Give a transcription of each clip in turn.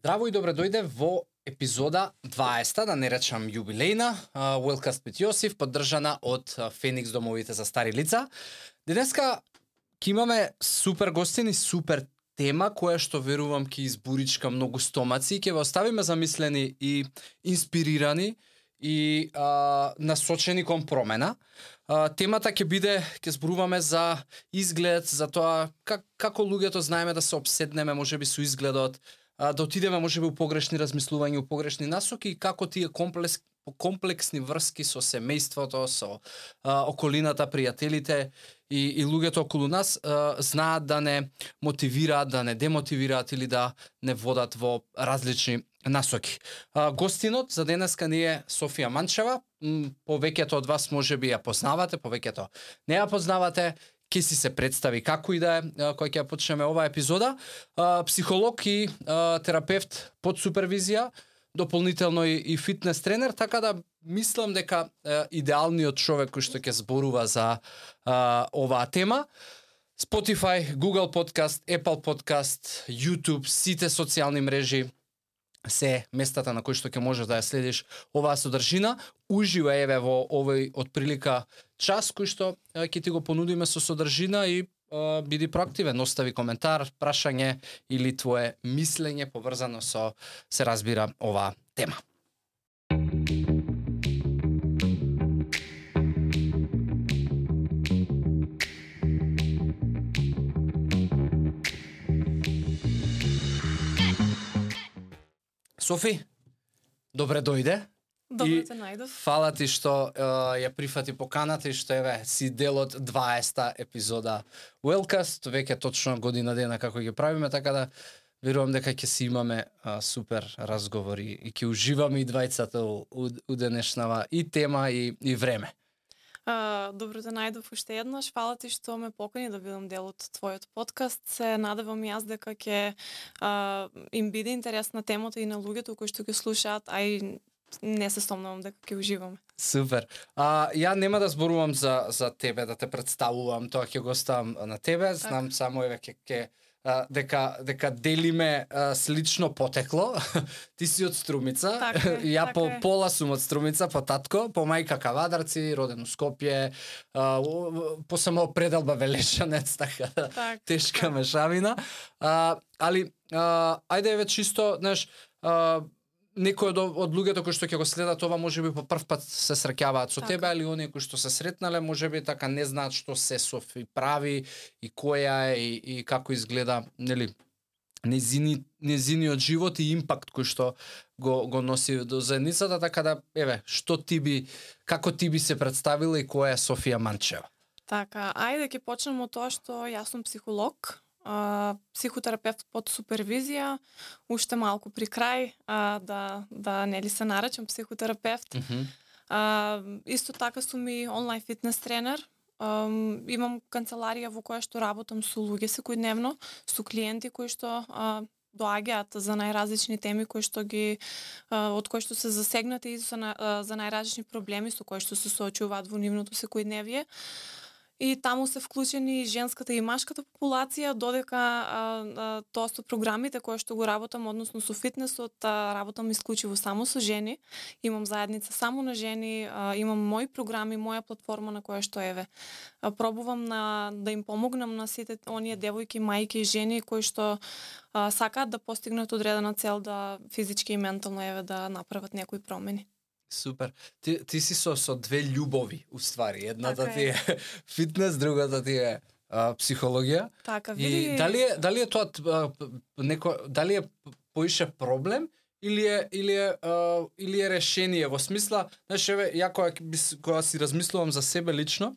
Здраво и добре дојде во епизода 20, да не речам јубилејна, Wellcast with Јосиф, поддржана од Феникс домовите за стари лица. Денеска ќе имаме супер гостини, супер тема која што верувам ќе избуричка многу стомаци и ќе ве оставиме замислени и инспирирани и насочени кон промена. Темата ќе биде, ќе зборуваме за изглед, за тоа како луѓето знаеме да се обседнеме можеби со изгледот, да отидеме можеби у погрешни размислувања, у погрешни насоки и како тие комплексни врски со семејството, со околината, пријателите и луѓето околу нас знаат да не мотивираат, да не демотивираат или да не водат во различни насоки. Гостинот за денеска ни е Софија Манчева. Повеќето од вас можеби ја познавате, повеќето не ја познавате. Ке си се представи како и да е, кој ќе ја почнеме оваа епизода. Психолог и терапевт под супервизија, дополнително и фитнес тренер, така да мислам дека идеалниот човек кој што ќе зборува за оваа тема. Spotify, Google Podcast, Apple Podcast, YouTube, сите социјални мрежи се местата на кои што ќе можеш да ја следиш оваа содржина. Уживо еве во овој отприлика час кој што ќе ти го понудиме со содржина и биди проактивен, остави коментар, прашање или твое мислење поврзано со, се разбира, оваа тема. Софи, добре дојде. Добре те најдов. Фала ти што ја прифати поканата и што еве си дел од 20-та епизода Wellcast, веќе точно година дена како ги правиме, така да верувам дека ќе си имаме супер разговори и ќе уживаме и двајцата у денешнава и тема и време. Добро те најдов уште еднаш. Фала ти што ме покани да бидам дел од твојот подкаст. Се надевам јас дека ќе им биде интересна темата и на луѓето кои што ќе слушаат, а и не се сомневам дека ќе уживаме. Супер. Ја нема да зборувам за тебе, да те представувам, тоа ќе го оставам на тебе. Знам само еве ќе дека делиме слично потекло. Ти си од Струмица, ја по пола сум од Струмица, по татко, по мајка Кавадарци, роден у Скопје, по само пределба Велешанец, така тешка мешавина. Али ајде еве чисто, знаеш, некој од луѓето кои што ќе го следат ова можеби по прв пат се среќаваат со тебе, али оние кои што се сретнале можеби така не знаат што се Софи прави и која е и како изгледа, нели, незиниот живот и импакт кој што го носи до заедницата, така да еве, како ти би се представила и која е Софија Манчева? Така, ајде ќе почнеме од тоа што јас сум психолог. Психотерапевт под супервизија, уште малку при крај да нели се наречам психотерапевт. Исто така сум и онлайн фитнес тренер. Имам канцеларија во која што работам со луѓе секојдневно, со клиенти кои што доаѓаат за најразлични теми кои што од кои што се засегнати и за најразлични проблеми со кои што се соочуваат во нивното секојдневие. И таму се вклучени женската и машката популација, додека тоа со програмите кои што го работам, односно со фитнесот, работам исклучиво само со жени. Имам заедница само на жени, имам мои програми, моја платформа на која што еве пробувам да им помогнам на сите оние девојки, мајки и жени кои што сакаат да постигнат одредена цел, да физички и ментално еве да направат некои промени. Супер. Ти си со две љубови, уствари. Едната ти е фитнес, другата ти е психологија. Така, види. И дали е тоа дали е поише проблем или е решение во смисла, знаеш, еве ја кога си размислувам за себе лично,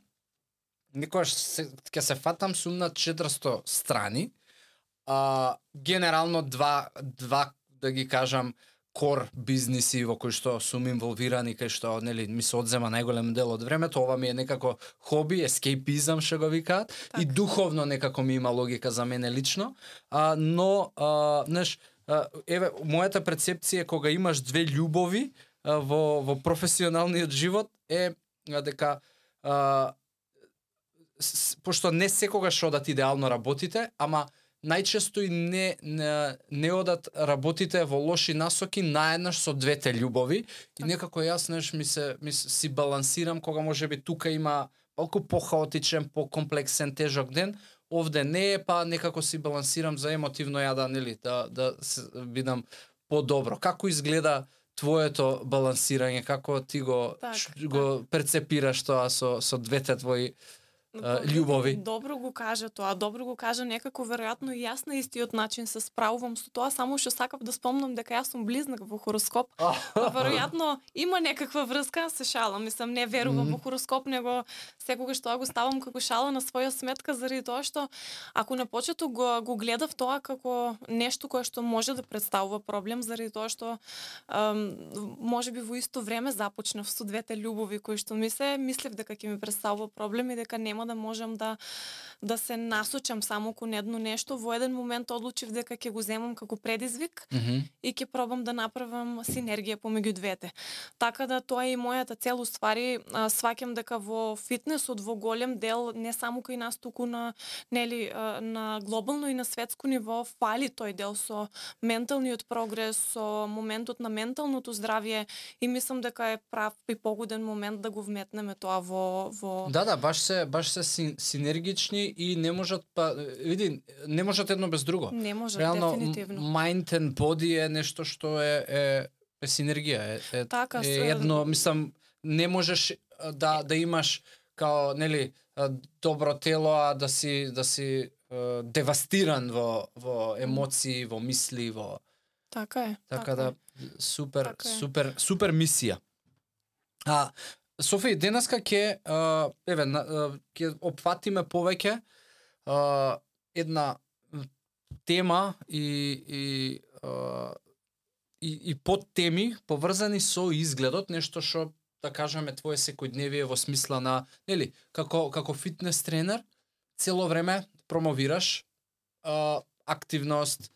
некогаш ќе се фатам сум на 400 страни. Генерално два да ги кажам кор бизниси во кои што сум инволвирани, кај што нели ми се одзема најголем дел од времето, ова ми е некако хоби, ескейпизам што го викаат, и духовно некако ми има логика за мене лично, но знаеш, еве мојата перцепција кога имаш две љубови во професионалниот живот е дека пошто не секогаш одат идеално работите, ама најчесто и не одат работите во лоши насоки наеднаш со двете љубови и некако јас си балансирам кога можеби тука има малку похаотичен, покомплексен, тежок ден, овде не е, па некако си балансирам за емотивно да бидам подобро. Како изгледа твоето балансирање, како ти го перцепираш тоа со двете твои љубови? Добро го кажа тоа, добро го кажа некако веројатно и јас на истиот начин се справувам со тоа, само што сакав да спомнам дека јас сум близнак во хороскоп. Веројатно има некаква врска, се шалам, мислам не верувам во хороскоп, него секогаш тоа го ставам како шала на своја сметка заради тоа што ако на почеток го гледав тоа како нешто кое што може да представува проблем заради тоа што можеби во исто време започнав со двете љубови кои што мислев дека ќе ми представува проблем и дека нема да можам да се насочам само кон едно нешто. Во еден момент одлучив дека ќе го земам како предизвик и ќе пробам да направам синергија помеѓу двете. Така да тоа е и мојата цел, уствари сваќам дека во фитнесот во голем дел не само кај нас туку на глобално и на светско ниво фали тој дел со менталниот прогрес, со моментот на менталното здравје и мислам дека е прав и погоден момент да го вметнеме тоа во Да, баш се синергични и не можат не можат едно без друго. Не можат, реално, дефинитивно. Mind and body е нешто што е синергија. Е едно, мислам, не можеш да имаш као, нели, добро тело, а да си девастиран во емоции, во мисли, во... Така е. Така да, супер мисија. Софи, денеска ќе опфатиме повеќе една тема и подтеми поврзани со изгледот, нешто што да кажеме твое секојдневие во смисла на, нели, како фитнес тренер, цело време промовираш активност,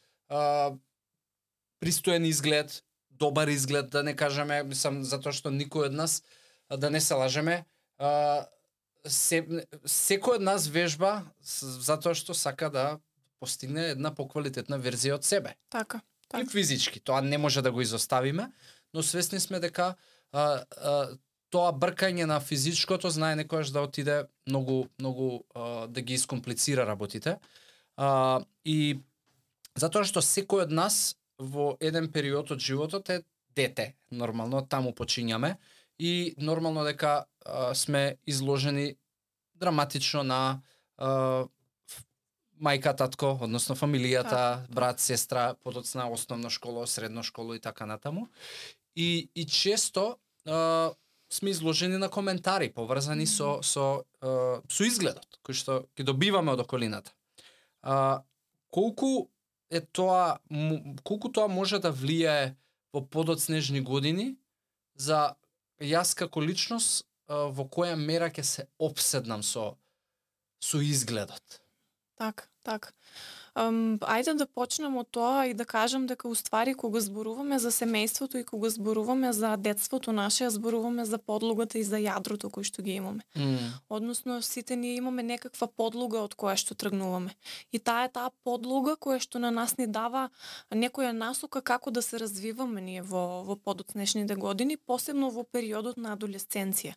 пристоен изглед, добар изглед, да не кажеме, мислам, затоа што никој од нас, да не се лажеме, секој од нас вежба затоа што сака да постигне една поквалитетна верзија од себе. Така. И физички, тоа не може да го изоставиме, но свесни сме дека тоа бркање на физичкото знае некојаш да отиде многу да ги искомплицира работите. И затоа што секој од нас во еден период од животот е дете, нормално таму почињаме и нормално дека сме изложени драматично на мајка, татко, односно фамилијата, брат, сестра, подоцна основна школа, средна школа и така натаму. И често сме изложени на коментари поврзани со изгледот кој што ги добиваме од околината. Колку тоа може да влијае во подоцнежни години за јас како личност во која мера ќе се опседнам со изгледот. Так. Ајде да почнем од тоа и да кажам дека уствари кога зборуваме за семејството и кога зборуваме за детството наше, зборуваме за подлогата и за јадрото кој што ги имаме. Односно сите ние имаме некаква подлога од која што тргнуваме. И таа подлога која што на нас ни дава некоја насока како да се развиваме ние во подоцнешните години, посебно во периодот на адолесценција.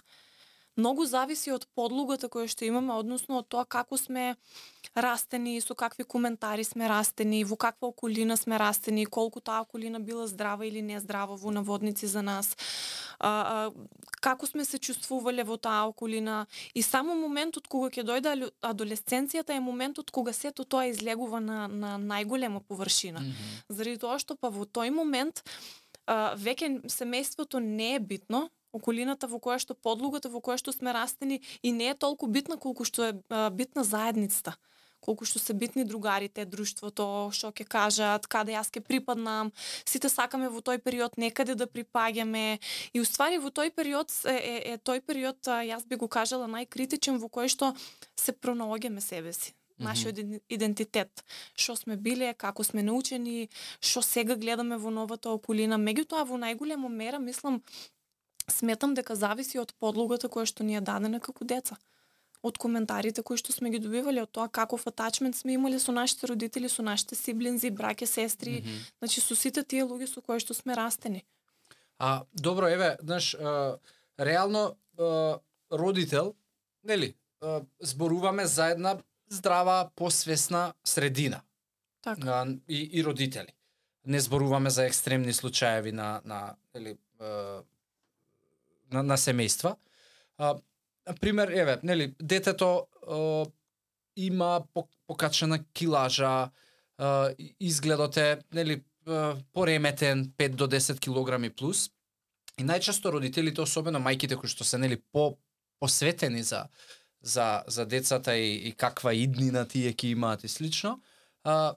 Многу зависи од подлогата која што имаме, односно од тоа како сме растени, со какви коментари сме растени, во каква околина сме растени, колку таа околина била здрава или не здрава во наводници за нас, како сме се чувствувале во таа околина. И само моментот кога ќе дојде адолесценцијата е моментот кога сето тоа излегува на најголема површина. Заради тоа што па во тој момент веќе семејството не е битно, околината во која што подлогата во која што сме растени и не е толку битна колку што е битна заедницата, колку што се битни другарите, друштвото, што ќе кажат, каде јас ќе припаднам. Сите сакаме во тој период некаде да припаѓаме и уствари во тој период тој период јас би го кажала најкритичен во кој што се пронаоѓаме себе си. Нашиот идентитет, што сме биле, како сме научени, што сега гледаме во новата околина. Меѓутоа во најголема мера мислам сметам дека зависи од подлогата која што ни е дадена како деца. од коментарите кои што сме ги добивале, од тоа каков атачмент сме имале со нашите родители, со нашите сиблинзи, браќа, сестри, значи со сите тие луѓе со кои што сме растени. Добро, еве, знаеш, реално родител, нели, зборуваме за една здрава, посвесна средина. Така. И родители. Не зборуваме за екстремни случаеви на семејства. Пример, еве, нели, детето има покачена килажа, изгледот е, нели, пореметен 5 до 10 килограми плюс. И најчесто родителите, особено мајките кои што се, нели, посветени за децата и каква иднина тие ќе имаат и слично,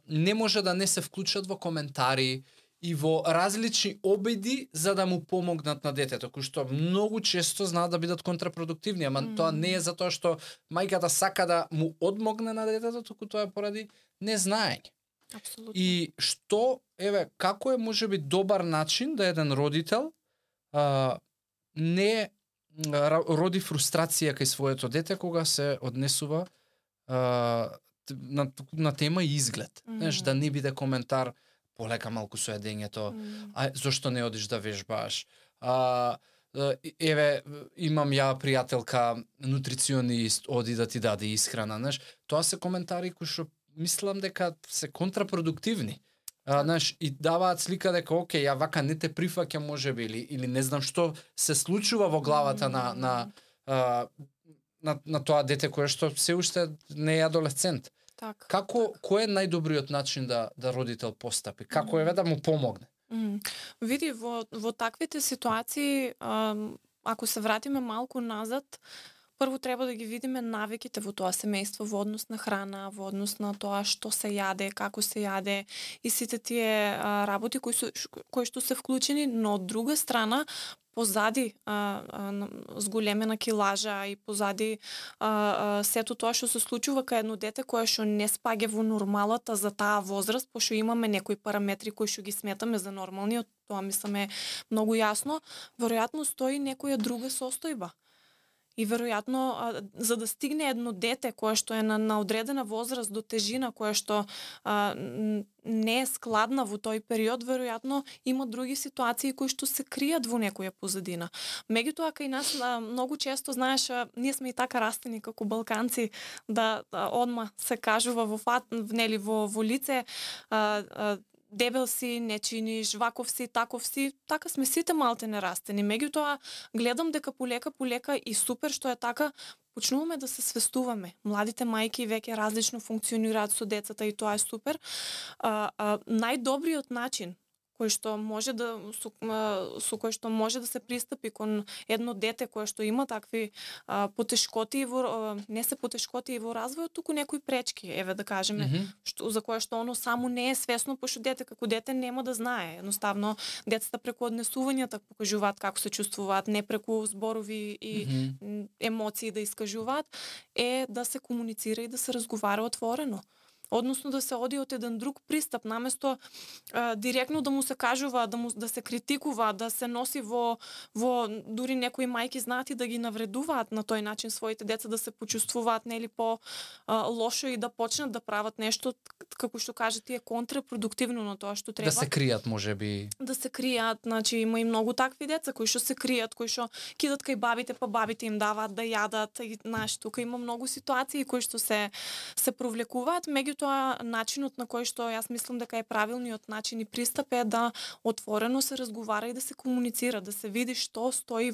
не може да не се вклучат во коментари и во различни обиди за да му помогнат на детето, кои што многу често знаат да бидат контрапродуктивни, ама тоа не е затоа што мајката сака да му одмогне на детето, туку тоа е поради незнаење. Апсолутно. И што, еве, како е можеби добар начин да еден родител не роди фрустрација кај своето дете кога се однесува на тема изглед. Знаеш, да не биде коментар полека малку со едењето, зошто не одиш да вежбаш? Еве, имам ја пријателка нутриционист, оди да ти даде исхрана, знаеш. Тоа се коментари кои што мислам дека се контрапродуктивни. Знаеш, и даваат слика дека окей, ја вака не те прифаќам можеби или не знам што се случува во главата на тоа дете кое што се уште не е адолесцент. Кој е најдобриот начин да родител постапи? Како е да му помогне? Види, во таквите ситуации, ако се вратиме малку назад, прво треба да ги видиме навиките во тоа семејство во однос на храна, во однос на тоа што се јаде, како се јаде и сите тие работи кои што се вклучени, но од друга страна позади зголемена килажа и позади сето тоа што се случува кај едно дете кое што не спаѓа во нормалата за таа возраст, пошто имаме некои параметри кои што ги сметаме за нормални, од тоа мисламе многу јасно, веројатно стои некоја друга состојба. И веројатно за да стигне едно дете кое што е на одредена возраст до тежина која што не е складна во тој период, веројатно има други ситуации кои што се кријат во некоја позадина. Меѓутоа кај нас многу често, знаеш, ние сме и така растени како балканци да одма се кажува во лице, дебел си, не чиниш, ваков си, таков си, така сме сите малте нерастени. Меѓутоа, гледам дека полека и супер што е така, почнуваме да се свестуваме. Младите мајки веќе различно функционираат со децата и тоа е супер. Најдобриот начин кој што може со кој што може да се пристапи кон едно дете кое што има такви потешкоти не се потешкоти во развојот, туку некои пречки, еве да кажеме, за кое што оно само не е свесно, пошто дете како дете нема да знае. Едноставно децата преку однесувањата покажуваат како се чувствуваат, не преку зборови и емоции да искажуваат, е да се комуницира и да се разговара отворено. Односно да се оди од еден друг пристап, наместо директно да му се кажува, да се критикува, да се носи во дури некои мајки знаат и да ги навредуваат на тој начин своите деца, да се почувствуваат нели по лошо и да почнат да прават нешто како што кажете е контрапродуктивно на тоа што треба. Да се кријат можеби. Да се кријат, значи има и многу такви деца кои што се кријат, кои што кидат кај бабите, па бабите им даваат да јадат и знаеш, тука има многу ситуации кои што се провлекуваат, меѓутоа начинот на кој што јас мислам дека е правилниот начин и пристап е да отворено се разговара и да се комуницира, да се види што стои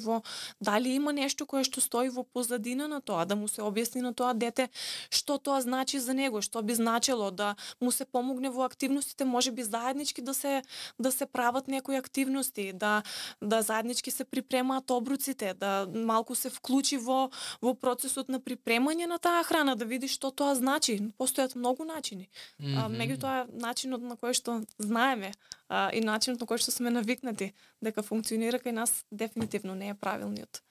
дали има нешто кое што стои во позадина на тоа, да му се објасни на тоа дете што тоа значи за него, што би значело да му се помогне во активностите, можеби заеднички да се прават некои активности, да заеднички се припремаат обруците, да малку се вклучи во процесот на припремање на таа храна, да види што тоа значи. Постојат многу начини. Меѓутоа начинот на кој што знаеме и начинот на кој што сме навикнати дека функционира кај нас дефинитивно не е правилниот.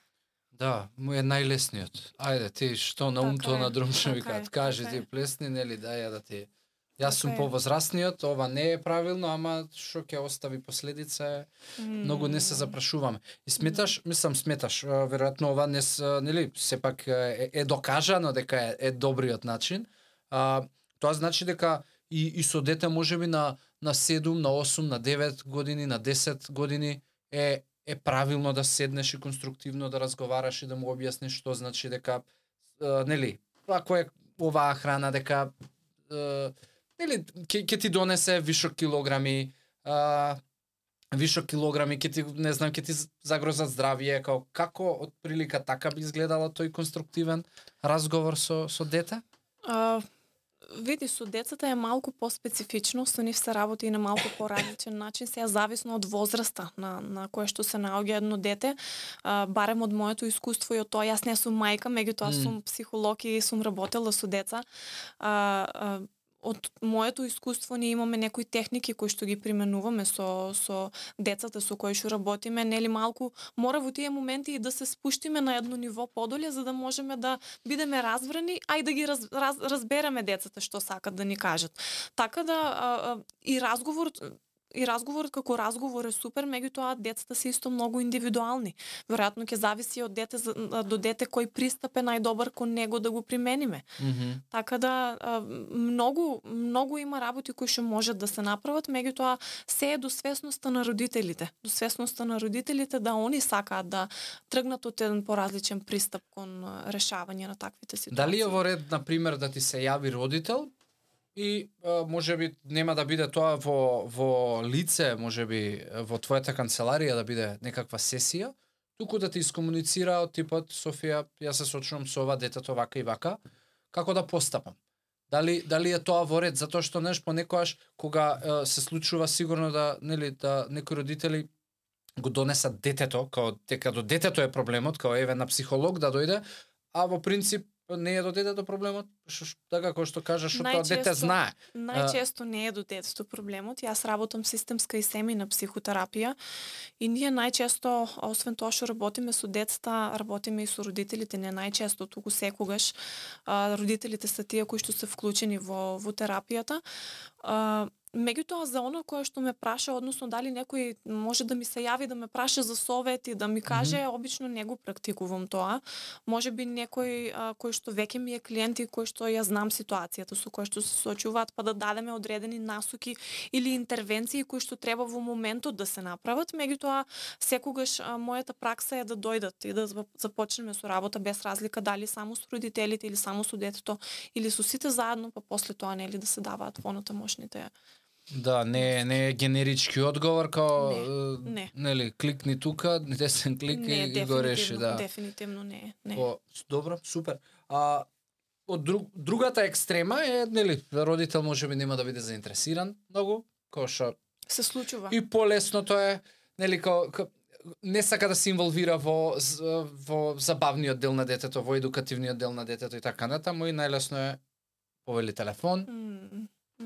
Да, му е најлесниот. Ајде, ти што на умто на друмче викаат, кажи ти плесни, нели, дај да Јас сум повозрастниот, ова не е правилно, ама што ќе остави последица е многу не се запрашуваме. И сметаш, веројатно ова не нели сепак е докажано дека е добриот начин. Тоа значи дека и со дете можеби на 7, на 8, на 9 години, на 10 години е правилно да седнеш и конструктивно да разговараш и да му објасниш што значи дека нели ако е оваа храна дека нели ќе ти донесе вишок килограми, ќе ти не знам ќе ти загрозат здравје, како отприлика така би изгледало тој конструктивен разговор со дете? Види, со децата е малку поспецифично, со нив се работи и на малку поразличен начин, сега зависно од возраста на кое што се наоѓа едно дете, барем од моето искуство и од тоа, јас не сум мајка, меѓутоа сум психолог и сум работела со деца. Од моето искуство ние имаме некои техники кои што ги применуваме со децата со кои што работиме, нели малку мора во тие моменти и да се спуштиме на едно ниво подоле за да можеме да бидеме разбрани, а и да ги разбереме децата што сакат да ни кажат. Така да и разговорот како разговор е супер, меѓутоа децата се исто многу индивидуални. Веројатно ќе зависи од дете до дете кој пристап е најдобар кон него да го примениме. Така да многу има работи кои што можат да се направат, меѓутоа се е до свесноста на родителите. До свесноста на родителите да они сакаат да тргнат од еден поразличен пристап кон решавање на таквите ситуации. Дали е во ред, на пример, да ти се јави родител и можеби нема да биде тоа во лице, можеби во твојата канцеларија да биде некаква сесија, туку да ти искомуницира од типот Софија, јас се сочувам со ова детето вака и вака, како да постапам. Дали е тоа во ред, затоа што понекогаш кога се случува сигурно да некои родители го донесат детето, као дека до детето е проблемот, као еве на психолог да дојде, а во принцип не е до детето проблемот, така како што кажаш, што тоа дете знае. Најчесто не е до детето проблемот. Јас работам системска и семејна психотерапија и ние најчесто, освен тоа што работиме со децата, работиме и со родителите, не најчесто, туку секогаш. Родителите се тие кои што се вклучени во терапијата. Меѓутоа за оно кое што ме праша, односно дали некој може да ми се јави да ме праша за совет и да ми каже, обично не го практикувам тоа. Можеби некој кој што веќе ми е клиент и кој што ја знам ситуацијата со кој што се соочуваат, па да дадеме одредени насоки или интервенции кои што треба во моментот да се направат. Меѓутоа секогаш мојата пракса е да дојдат и да започнеме со работа без разлика дали само со родителите или само со детето или со сите заедно, па после тоа нели да се даваат понатамошните. Да, не е генерички одговор као нели кликни тука, десен клик и го реши, да. Дефинитивно не. Добро, супер. Од другата екстрема е нели родител можеби нема да биде заинтересиран многу, кој што се случува. И полесното е нели не сака да се инволвира во забавниот дел на детето, во едукативниот дел на детето и така натаму, и најлесно е повели телефон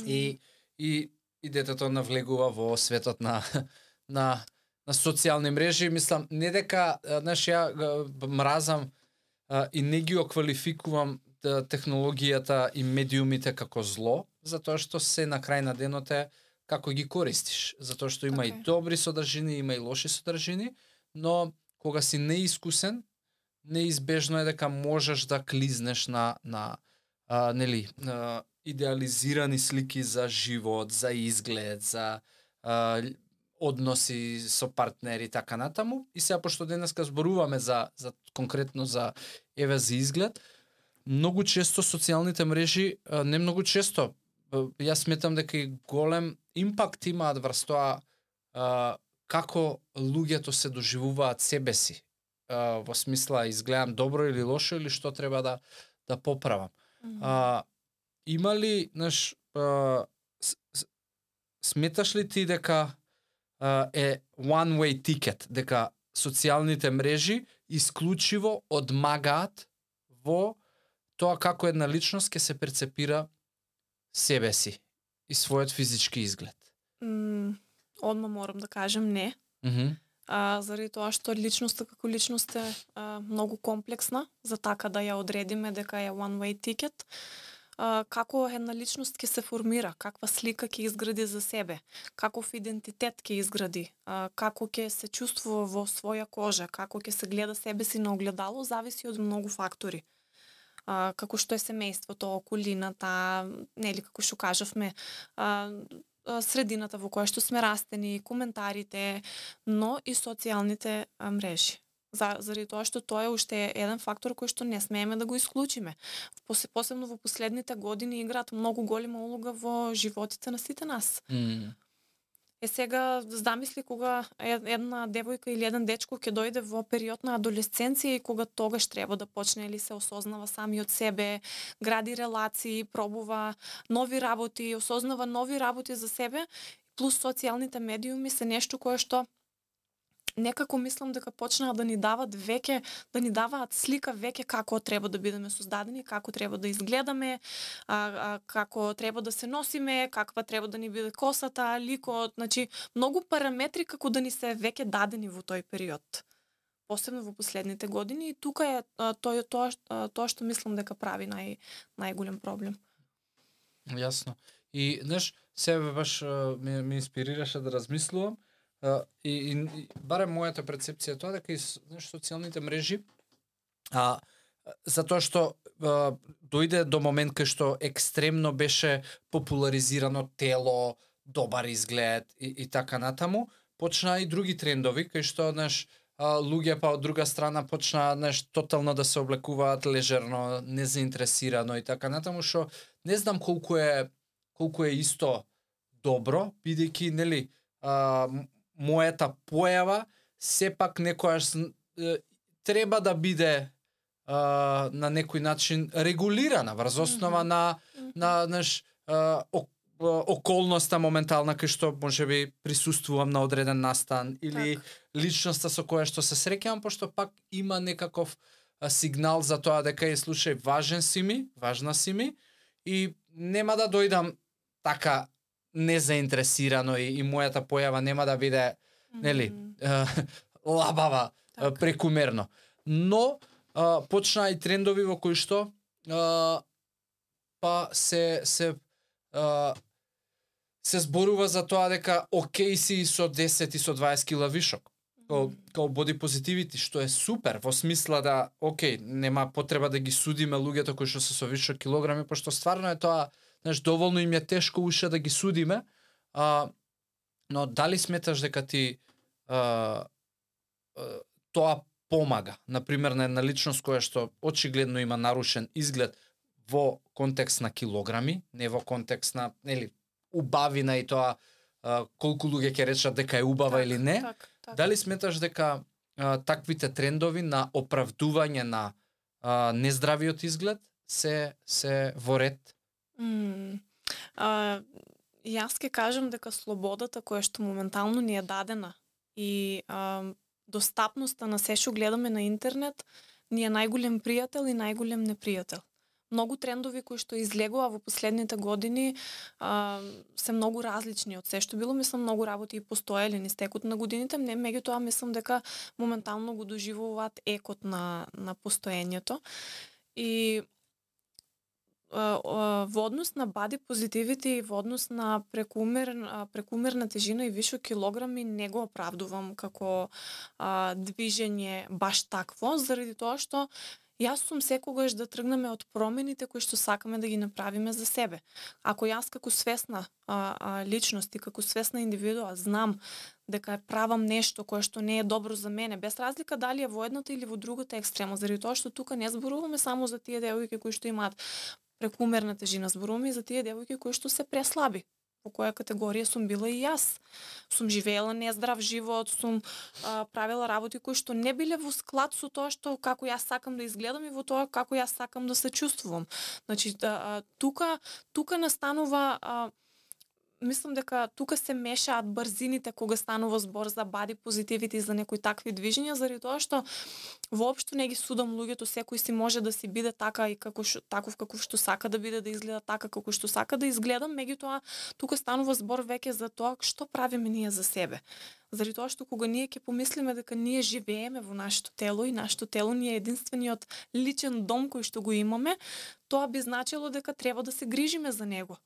и детето навлегува во светот на социјални мрежи. Мислам, не дека, ја мразам и не ги оквалификувам технологијата и медиумите како зло, затоа што се на крај на денот е како ги користиш. Затоа што има и добри содржини, има и лоши содржини, но кога си неискусен, неизбежно е дека можеш да клизнеш на идеализирани слики за живот, за изглед, за односи со партнери, така натаму. И сега, пошто денеска зборуваме за конкретно за изглед, многу често социјалните мрежи, не многу често, јас сметам дека и голем импакт имаат врз тоа како луѓето се доживуваат себе си. Во смисла, изгледам добро или лошо, или што треба да поправам. Има ли, сметаш ли ти дека е one way ticket, дека социјалните мрежи исклучиво одмагаат во тоа како една личност ќе се перцепира себе си и својот физички изглед? Одма морам да кажем не. Заради тоа што личноста како личност е многу комплексна, за така да ја одредиме дека е one way ticket. како една личност ќе се формира, каква слика ќе изгради за себе, каков идентитет ќе изгради, како ќе се чувствува во своја кожа, како ќе се гледа себе си на огледало, зависи од многу фактори. Како што е семејството, околината, нели како што кажавме, средината во која што сме растени, коментарите, но и социјалните мрежи. Заради тоа што тоа е уште еден фактор кој што не смееме да го исклучиме. Посебно во последните години играат многу голема улога во животите на сите нас. Сега замисли кога една девојка или еден дечко ќе дојде во период на адолесценција и кога тогаш треба да почне или се осознава сами од себе, гради релации, пробува нови работи, осознава нови работи за себе, плюс социјалните медиуми се нешто кое што некако мислам дека почнаа да ни даваат слика веќе како треба да бидеме создадени, како треба да изгледаме, како треба да се носиме, каква треба да ни биде косата, ликот, значи многу параметри како да ни се веќе дадени во тој период. Посебно во последните години, и тука е тоа што мислам дека прави најголем проблем. Јасно. И знаеш, себе баш ме инспирираше да размислувам. И барем мојата перцепција тоа дека и социјалните мрежи затоа што дојде до момент кај што екстремно беше популаризирано тело, добар изглед и така натаму, почнаа и други трендови кај што луѓе па од друга страна почнаа тотално да се облекуваат лежерно, незаинтересирано и така натаму, што не знам колку е исто добро, бидејќи нели мојата појава сепак некојаш треба да биде на некој начин регулирана врз основа на околноста моментална кај што можеби присуствувам на одреден настан или личноста со која што се среќавам, пошто пак има некаков сигнал за тоа дека слушај, важна си ми и нема да дојдам така незаинтересирано и мојата појава нема да биде нели лабава, прекумерно. Но почнаа и трендови во кои што па се зборува за тоа дека окей си со 10 и со 20 кила вишок. Као body positivity, што е супер, во смисла да, окей, нема потреба да ги судиме луѓето кои што се со вишок килограми, пошто стварно е тоа, доволно им е тешко уште да ги судиме, но дали сметаш дека ти тоа помага, например, на една личност која што очигледно има нарушен изглед во контекст на килограми, не во контекст на, нели, убавина и тоа колку луѓе ќе речат дека е убава или не. Дали сметаш дека таквите трендови на оправдување на нездравиот изглед се во ред? Јас ќе кажам дека слободата која што моментално ни е дадена и достапноста на се што гледаме на интернет ни е најголем пријател и најголем непријател. Многу трендови кои што излегува во последните години се многу различни од се што било. Мислам, многу работи и постоеле низ текот на годините, меѓутоа мислам дека моментално го доживуваат екот на постоењето. И во однос на body positivity и во однос на прекумерна тежина и вишок килограми не го оправдувам како движење баш такво, заради тоа што јас сум секогаш да тргнеме од промените кои што сакаме да ги направиме за себе. Ако јас како свесна личност и како свесна индивидуа знам дека правам нешто кое што не е добро за мене, без разлика дали е во едната или во другата екстрема, заради тоа што тука не зборуваме само за тие девојки кои што имаат прекумерна тежина, зборуваме и за тие девојки кои што се преслаби. Во која категорија сум била и јас. Сум живеела нездрав живот, сум правила работи кои што не биле во склад со тоа што како јас сакам да изгледам и во тоа како јас сакам да се чувствувам. Значи, тука настанува мислам дека тука се мешаат брзините кога станува збор за body positivity, за некои такви движења, заради тоа што воопшто не ги судам луѓето, секој си може да си биде така и таков каков што сака да биде, да изгледа така како што сака да изгледа, меѓутоа тука станува збор веќе за тоа што правиме ние за себе. Заради тоа што кога ние ќе помислиме дека ние живееме во нашето тело и нашето тело ни е единствениот личен дом кој што го имаме, тоа би значило дека треба да се грижиме за него.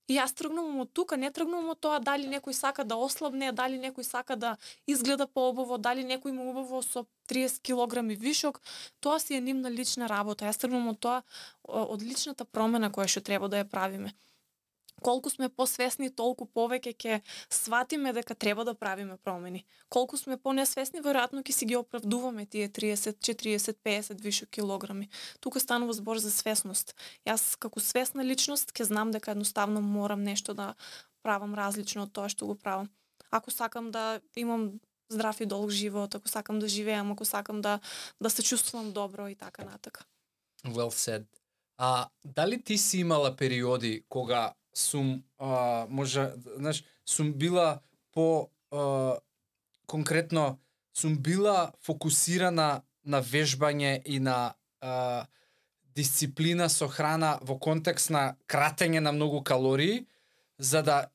И јас тргнувам од тука, не тргнувам од тоа дали некој сака да ослабне, дали некој сака да изгледа поубаво, дали некој му убаво со 30 килограми вишок, тоа си е нивна лична работа. Јас тргнувам од тоа, од личната промена која што треба да ја правиме. Колку сме посвесни, толку повеќе ќе сватиме дека треба да правиме промени. Колку сме понесвесни, веројатно ќе си ги оправдуваме тие 30, 40, 50 вишок килограми. Тука станува збор за свесност. Јас како свесна личност ќе знам дека едноставно морам нешто да правам различно од тоа што го правам. Ако сакам да имам здрав и долг живот, ако сакам да живеам, ако сакам да се чувствувам добро и така натака. Well said. Дали ти си имала периоди кога сум сум била конкретно сум била фокусирана на вежбање и на дисциплина со храна во контекст на кратење на многу калории, за да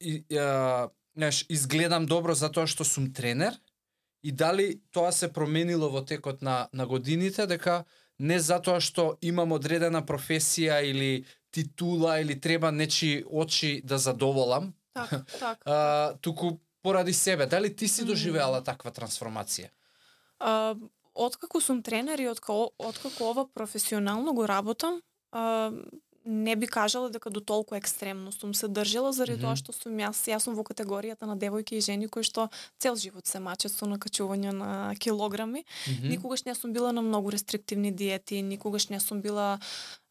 изгледам добро затоа што сум тренер, и дали тоа се променило во текот на годините, дека не затоа што имам одредена професија или титула или треба нечи очи да задоволам. Так. Туку поради себе. Дали ти си доживеала таква трансформација? Откако сум тренер и откако ова професионално го работам, не би кажала дека до толку екстремно сум се држала, заради тоа што сум јас сум во категоријата на девојки и жени кои што цел живот се мачат со накачување на килограми. Никогаш не сум била на многу рестриктивни диети, никогаш не сум била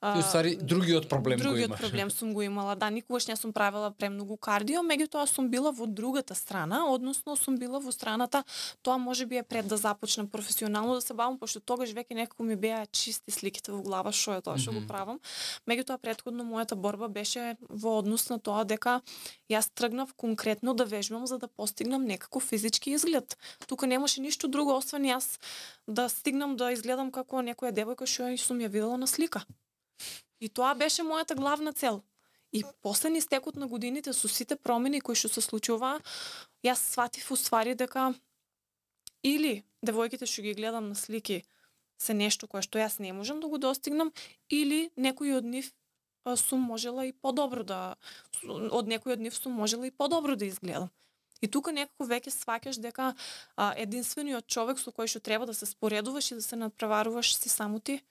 И уствари другиот проблем го имаш. Другиот проблем сум го имала. Да, никогаш не сум правила премногу кардио, меѓутоа сум била во другата страна, односно сум била во страната, тоа можеби е пред да започнам професионално да се бавам, пошто тогаш веќе некако ми беа чисти сликите во глава што е тоа што го правам. Меѓутоа претходно мојата борба беше во однос на тоа дека јас тргнав конкретно да вежбам за да постигнам некако физички изглед. Тука немаше ништо друго освен јас да стигнам да изгледам како некоја девојка што сум ја видела на слика. И тоа беше мојата главна цел. И после истекот на годините со сите промени кои што се случуваа, јас сватив уствари дека или девојките што ги гледам на слики се нешто кое што јас не можам да го достигнам, или некој од нив сум можела и подобро од некој од нив сум можела и подобро да изгледам. И тука некако веќе сваќаш дека единствениот човек со кој што треба да се споредуваш и да се надпреваруваш си само ти.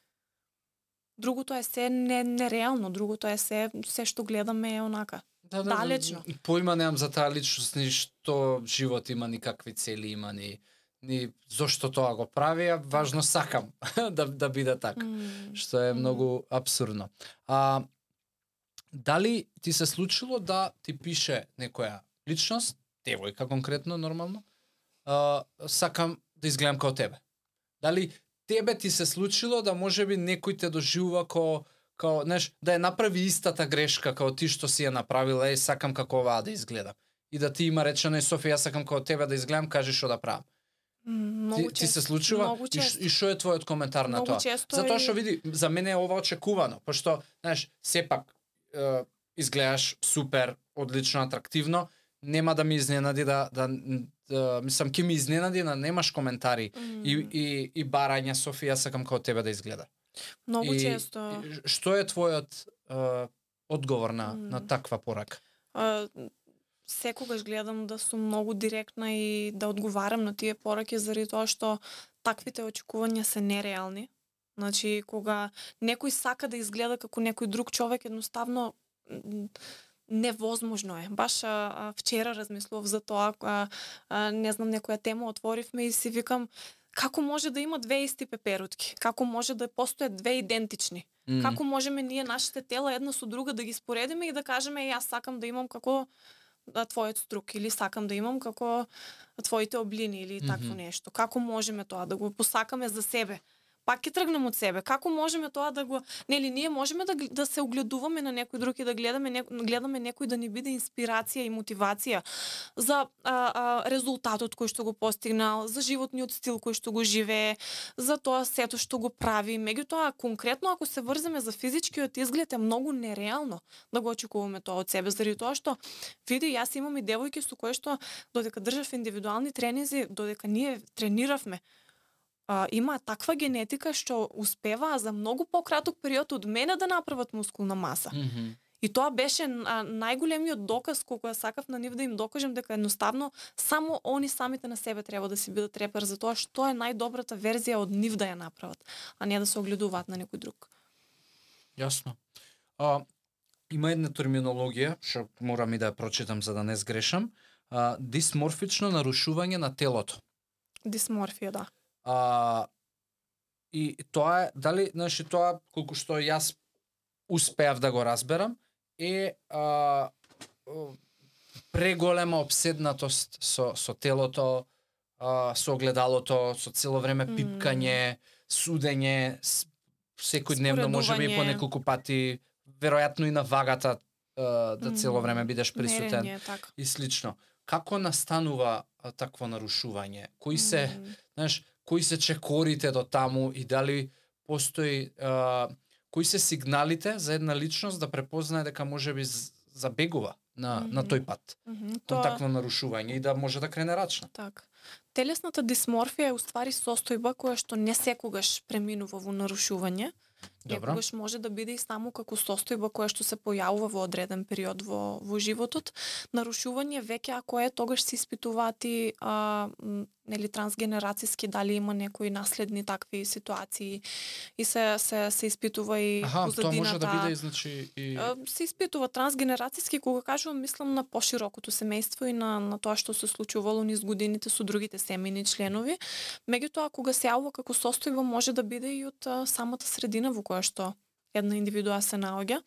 Другото е се нереално, другото е се што гледаме е онака. Далечно. Поима немам за таа личност, ни што живот има, никакви цели има, ни зошто тоа го прави, а важно сакам да биде така, што е многу абсурдно. Дали ти се случило да ти пише некоја личност, девојка конкретно, нормално, сакам да изгледам како тебе? Дали тебе ти се случило да можеби некој те доживува како да ја направи истата грешка како ти што си ја направила, сакам како оваа да изгледам. И да ти има речено, Софија, сакам како тебе да изгледам, кажи што да правам. Ти се случува? И што е твојот коментар на тоа? Затоа што види, за мене е ова очекувано, пошто, сепак изгледаш супер, одлично, атрактивно, нема да ми изненади мислам, ќе ми изненади да немаш коментари и барања, Софија, сакам како тебе да изгледа. Многу често. Што е твојот одговор на таква порака? Секогаш гледам да сум многу директна и да одговарам на тие пораки, заради тоа што таквите очекувања се нереални. Значи, кога некој сака да изгледа како некој друг човек, едноставно невозможно е. Баш вчера размислував за тоа, не знам, некоја тема отворивме и си викам, како може да има две исти пеперутки? Како може да постојат две идентични? Како можеме ние нашите тела една со друга да ги споредиме и да кажеме, јас сакам да имам како твојот струк, или сакам да имам како твоите облини, или такво нешто? Како можеме тоа да го посакаме за себе? пак ќе тргнем од себе. Како можеме тоа да го, нели ние можеме да се огледуваме на некој друг и да гледаме некој да ни биде инспирација и мотивација за резултатот кој што го постигнал, за животниот стил кој што го живее, за тоа сето што го прави. Меѓутоа конкретно ако се врземе за физичкиот изглед е многу нереално да го очекуваме тоа од себе, заради тоа што види јас имам и девојки со кои што додека држав индивидуални тренинзи, додека ние трениравме, има таква генетика што успеваа за многу пократок период од мене да направат мускулна маса. И тоа беше најголемиот доказ колку ја сакав на нив да им докажем дека едноставно само они самите на себе треба да си бидат репер за тоа што е најдобрата верзија од нив да ја направат, а не да се огледуваат на некој друг. Јасно. Има една терминологија, што морам и да ја прочитам за да не сгрешам, дисморфично нарушување на телото. Дисморфија, да. И тоа е, дали, значи тоа, колку што јас успеав да го разберам, е преголема обседнатост со телото, со огледалото, со цело време пипкање, судење, секојдневно можеби и по неколку пати, веројатно и на вагата да цело време бидеш присутен и слично. Како настанува такво нарушување? Кои се, знаеш, кои се чекорите до таму и дали постои кои се сигналите за една личност да препознае дека можеби забегува на тој пат, кон такво нарушување и да може да крене рачно. Так. Телесната дисморфија е уствари состојба која што не секогаш преминува во нарушување. Некогаш може да биде и само како состојба која што се појавува во одреден период во животот. Нарушување веќе ако е тогаш се испитуваат и нели трансгенерацијски дали има некои наследни такви ситуации и се испитува и позадината. Тоа може да биде значи и се испитува трансгенерацијски, кога кажувам мислам на поширокото семејство и на тоа што се случувало низ годините со другите семејни членови. Меѓутоа кога се јавува како состојба може да биде и од самата средина во која што една индивидуа се наоѓа.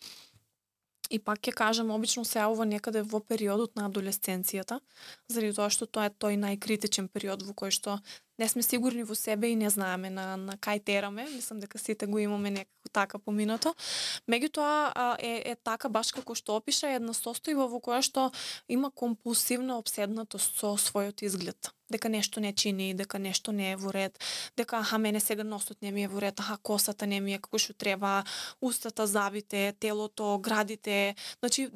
И пак ќе кажам, обично се јавува некаде во периодот на адолесценцијата, заради тоа што тоа е тој најкритичен период во кој што не сме сигурни во себе и не знаеме на кај тераме. Мислам дека сите го имаме некако така поминато. Меѓутоа е така баш како што опиша една состојба во која што има компулсивна обседнатост со својот изглед. Дека нешто не чини, дека нешто не е во ред, дека мене сега носот не ми е во ред, косата не ми е како што треба, устата завите, телото, градите, значи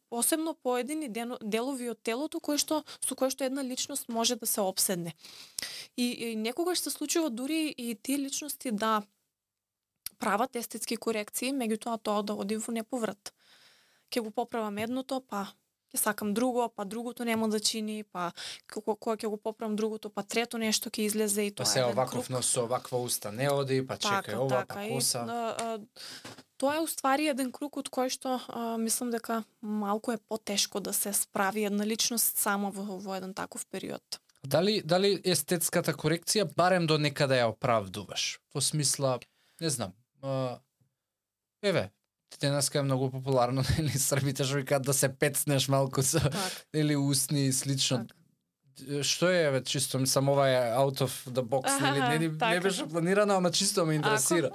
посебно поедини делови од телото со кои што една личност може да се обседне. И некогаш се случува дури и тие личности да прават естетски корекции, меѓутоа тоа да оди во неповрат. Ќе го поправам едното, па ќе сакам друго, па другото нема да чини, па кога ќе го поправам другото, па трето нешто ќе излезе и тоа е еден круг. Па се оваков нос со оваква уста не оди, па чекај ова, па коса. Тоа е уствари еден круг од кој што мислам дека малку е потешко да се справи една личност сама во еден таков период. Дали естетската корекција барем до некаде ја оправдуваш? Во смисла, не знам, денеска е многу популарно, нели, србите што викаат да се пецнеш малку со или устни и слично. Што е, чисто мислам, ова е out of the box, нели, не беше планирано, ама чисто ме интересира.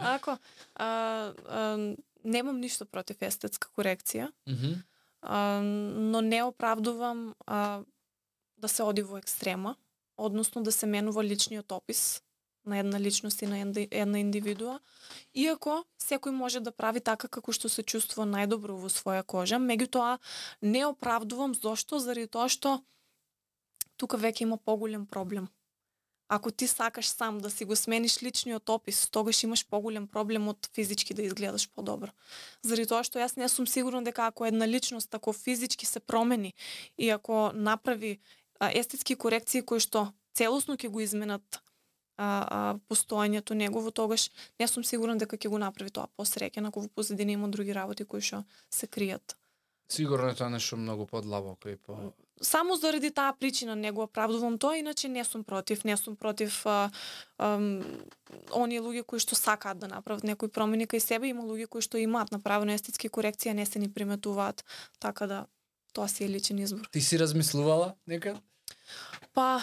Немам ништо против естетска корекција, но не оправдувам да се оди во екстрема, односно да се менува личниот опис на една личност и на една индивидуа, иако секој може да прави така како што се чувствува најдобро во своја кожа, меѓутоа не оправдувам зошто, заради тоа што тука веќе има поголем проблем. Ако ти сакаш сам да си го смениш личниот опис, тогаш имаш поголем проблем од физички да изгледаш подобро. Заради тоа што јас не сум сигурна дека ако една личност тако физички се промени и ако направи естетски корекции кои што целосно ќе го изменат постоењето негово, тогаш не сум сигурна дека ќе го направи тоа посреќен, ако во позадина има други работи кои што се кријат. Сигурно е тоа нешто многу подлабоко и по... Само заради таа причина не го оправдувам тоа, иначе не сум против оние луѓе кои што сакаат да направат некои промени кај себе, има луѓе кои што имаат направено естетски корекции, не се ни приметуваат, така да тоа си е личен избор. Ти си размислувала некад? Па,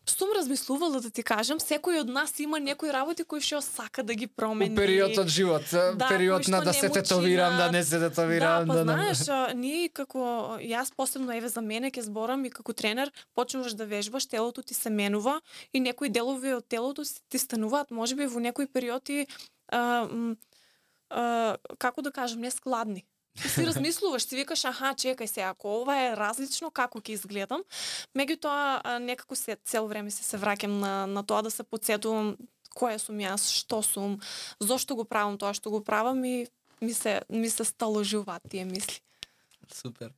сум размислувала да ти кажам, секој од нас има некои работи кои што сака да ги промени. У период од живот, период на да се тетовирам, да не се тетовирам, да, знаеш, ние како јас посебно еве за мене ќе зборам и како тренер, почнуваш да вежбаш, телото ти се менува и некои делови од телото ти стануваат можеби во некои периоди како да кажам, нескладни. Ти си размислуваш, си викаш, аха, чекај се, ако ова е различно, како ќе изгледам. Меѓутоа, некако цел време се враќам на тоа да се потсетувам која сум јас, што сум, зошто го правам тоа што го правам и ми се сталожуваат тие мисли. Супер.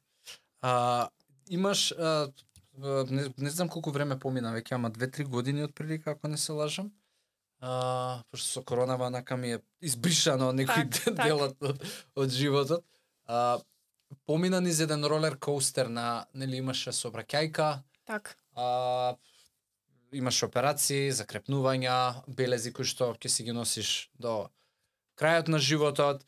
Имаш, не знам колку време помина, веќе ама 2-3 години отприлика, ако не се лажам. Пошто со коронава нака ми е избришано некој делот од животот. Помина низ еден ролер коустер нели имаше сообраќајка. Так. Имаш операции, закрепнувања, белези кои што ќе си ги носиш до крајот на животот.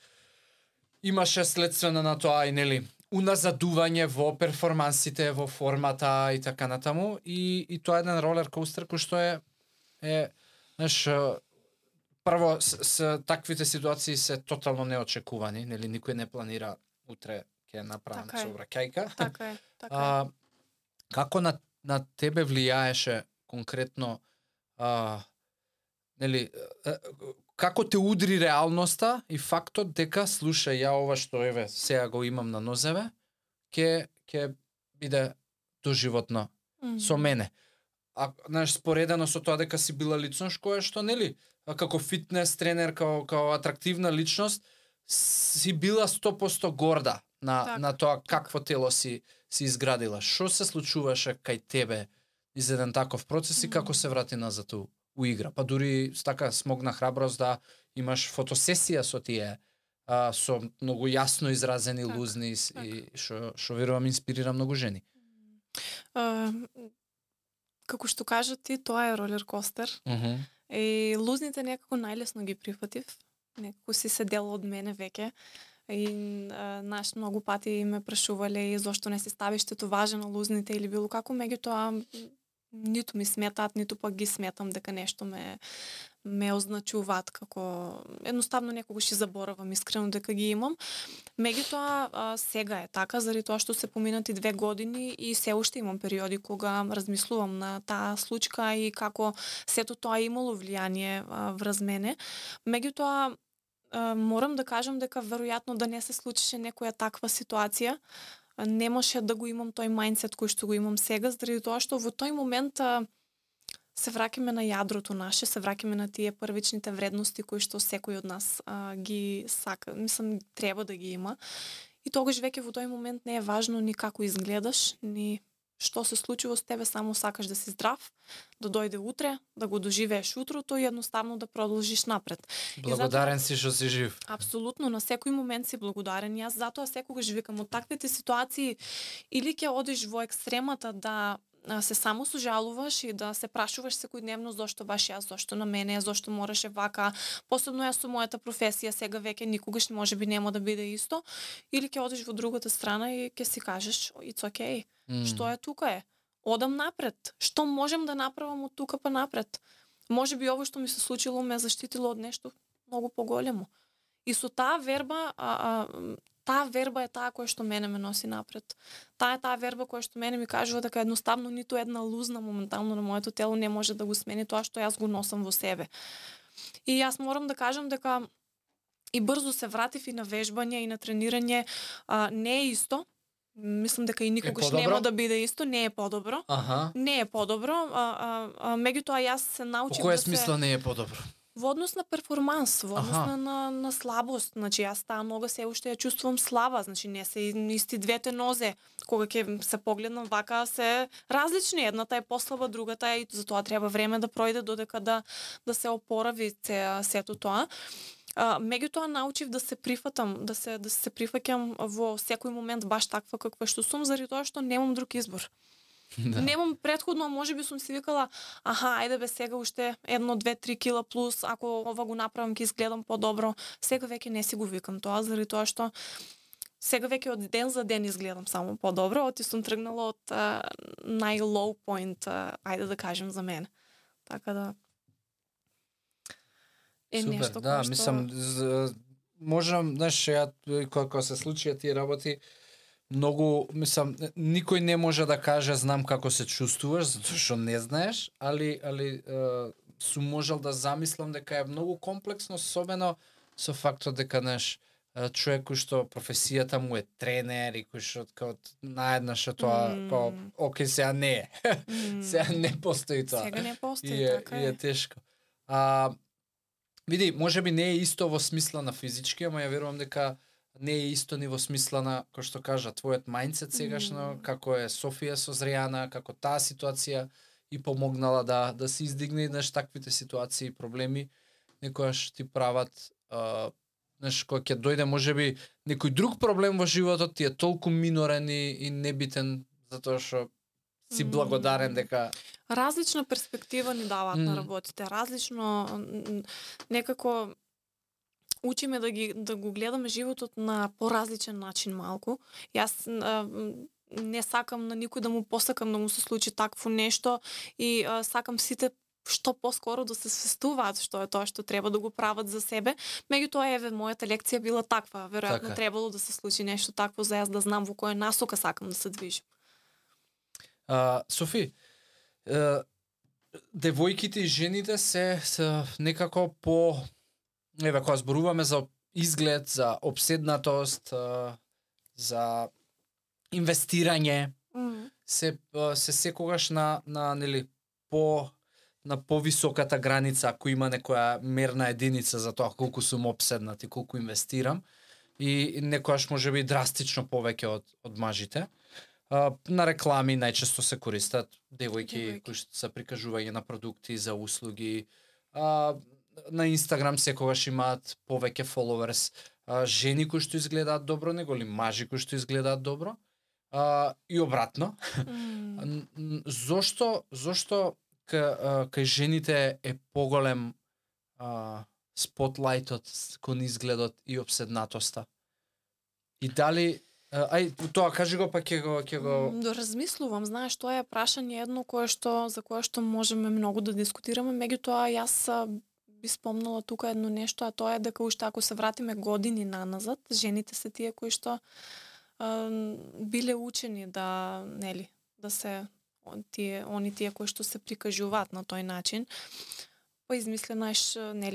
Имаше следствено на тоа и нели уназадување во перформансите, во формата и така натаму и тоа е еден ролер коустер кој што е знаеш, прво с таквите ситуации се тотално неочекувани, нели никој не планира утре ќе направам сообраќајка. Така е. Како на тебе влијаеше конкретно нели како те удри реалноста и фактот дека слушај ја ова што еве сега го имам на нозеве ќе биде доживотно со мене. Знаеш, споредено со тоа дека си била личност која што нели како фитнес тренер, како атрактивна личност си била 100% горда на тоа какво тело си изградила. Што се случуваше кај тебе из еден таков процес и како се врати назад у игра? Па дури така смогна храброст да имаш фотосесија со тие со многу јасно изразени лузни и што верувам инспирира многу жени. Како што кажа ти, тоа е ролер костер. И лузните некако најлесно ги прифатив. Некако си се дел од мене веќе. И наш многу пати ме прашувале зошто не се ставиш тетоважа на лузните или било како, меѓутоа ниту ми сметаат, ниту пак ги сметам дека нешто ме означуваат како едноставно некогаш и заборавам искрено дека ги имам. Меѓутоа сега е така заради тоа што се поминати 2 години и се уште имам периоди кога размислувам на таа случка и како сето тоа имало влијание врз мене. Меѓутоа морам да кажам дека веројатно да не се случише некоја таква ситуација, немаше да го имам тој мајндсет кој што го имам сега, заради тоа што во тој момент се враќаме на јадрото наше, се враќаме на тие првичните вредности кои што секој од нас ги сака, мислам треба да ги има. И тогаш веќе во тој момент не е важно ни како изгледаш, ни што се случува со тебе, само сакаш да си здрав, да дојде утре, да го доживееш утрото и едноставно да продолжиш напред. Благодарен си што си жив. Апсолутно, на секој момент си благодарен. Јас затоа секогаш викам од таквите ситуации или ќе одиш во екстремата да се само сожалуваш и да се прашуваш секојдневно зошто баш јас, зошто на мене, зошто мораше вака, посебно јас со мојата професија сега веќе никогаш можеби нема да биде исто, или ќе одиш во другата страна и ќе си кажеш it's okay. Што е тука е? Одам напред. Што можем да направам од тука па напред? Можеби ово што ми се случило ме заштитило од нешто многу поголемо. И со таа верба таа верба е таа која што мене ме носи напред. Таа е таа верба која што мене ми кажува дека едноставно ниту една лузна моментално на моето тело не може да го смени тоа што јас го носам во себе. И јас морам да кажам дека и брзо се вратив и на вежбање и на тренирање, не е исто. Мислам дека и никогаш нема да биде исто, не е подобро. Не е подобро, меѓутоа јас се научив да се... По која смисла не е подобро? Во однос на перформанс, во однос на слабост. Значи, јас таа нога се уште ја чувствувам слаба, значи не се исти двете нозе. Кога ќе се погледнам вака, се различни. Едната е послаба, другата е, и затоа треба време да пројде додека да се опорави сето тоа. Меѓутоа научив да се прифатам, да се прифаќам во секој момент баш таква каква што сум, заради тоа што немам друг избор. Да. Немам предходно, можеби сум си викала, ајде бе сега уште 1, 2, 3 кила плюс, ако ова го направам ќе изгледам подобро. Сега веќе не си го викам тоа, заради тоа што сега веќе од ден за ден изгледам само подобро, оти сум тргнала од нај-low point, ајде да кажем за мене. Така да Супер, нешто да, што... мислам, можам, знаеш, ја кога се случија тие работи, многу, мислам, никој не може да каже знам како се чувствуваш, затоа што не знаеш, али сум можел да замислам дека е многу комплексно, особено со фактот дека, знаеш, човек кој што професијата му е тренер и кој што као наеднаш тоа као окей, сега не е. Сега не постои тоа. Сега не постои, така е. И е тешко. Види, можеби не е исто во смисла на физички, ама ја верувам дека не е исто ни во смисла на, кој што кажа, твојот мајндсет сегашно, како е Софија созреана, како таа ситуација и помогнала да се издигне, знаеш, таквите ситуации и проблеми, некојаш ти прават, знаеш, кога ќе дојде можеби некој друг проблем во животот, ти е толку минорен и небитен, затоа што си благодарен дека... Различна перспектива ни даваат на работите, различно некако учиме да го гледаме животот на поразличен начин малку. Јас не сакам на никој да му посакам да му се случи такво нешто и сакам сите што поскоро да се свестуваат што е тоа што треба да го прават за себе. Меѓутоа, еве, мојата лекција била таква. Веројатно така. требало да се случи нешто такво за јас да знам во која насока сакам да се движам. Софи, девојките и жените се некако по... Еве, кога зборуваме за изглед, за обседнатост, за инвестирање, се секогаш на нели на повисоката граница, ако има некоја мерна единица за тоа колку сум обседнат и колку инвестирам, и некојаш можеби драстично повеќе од мажите. На реклами најчесто се користат девојки кои што се прикажување на продукти за услуги. На Инстаграм секогаш имаат повеќе followers, жени кои што изгледаат добро него ли мажи кои што изгледаат добро, и обратно. Зошто кај жените е поголем спотлајтот кон изгледот и обседнатоста? И дали тоа кажи го, па ќе го размислувам, знаеш, тоа е прашање едно за кое што можеме многу да дискутираме, меѓутоа јас би спомнала тука едно нешто, а тоа е дека уште ако се вратиме години наназад, жените се тие кои што биле учени да се тие кои што се прикажуваат на тој начин. Па измислено е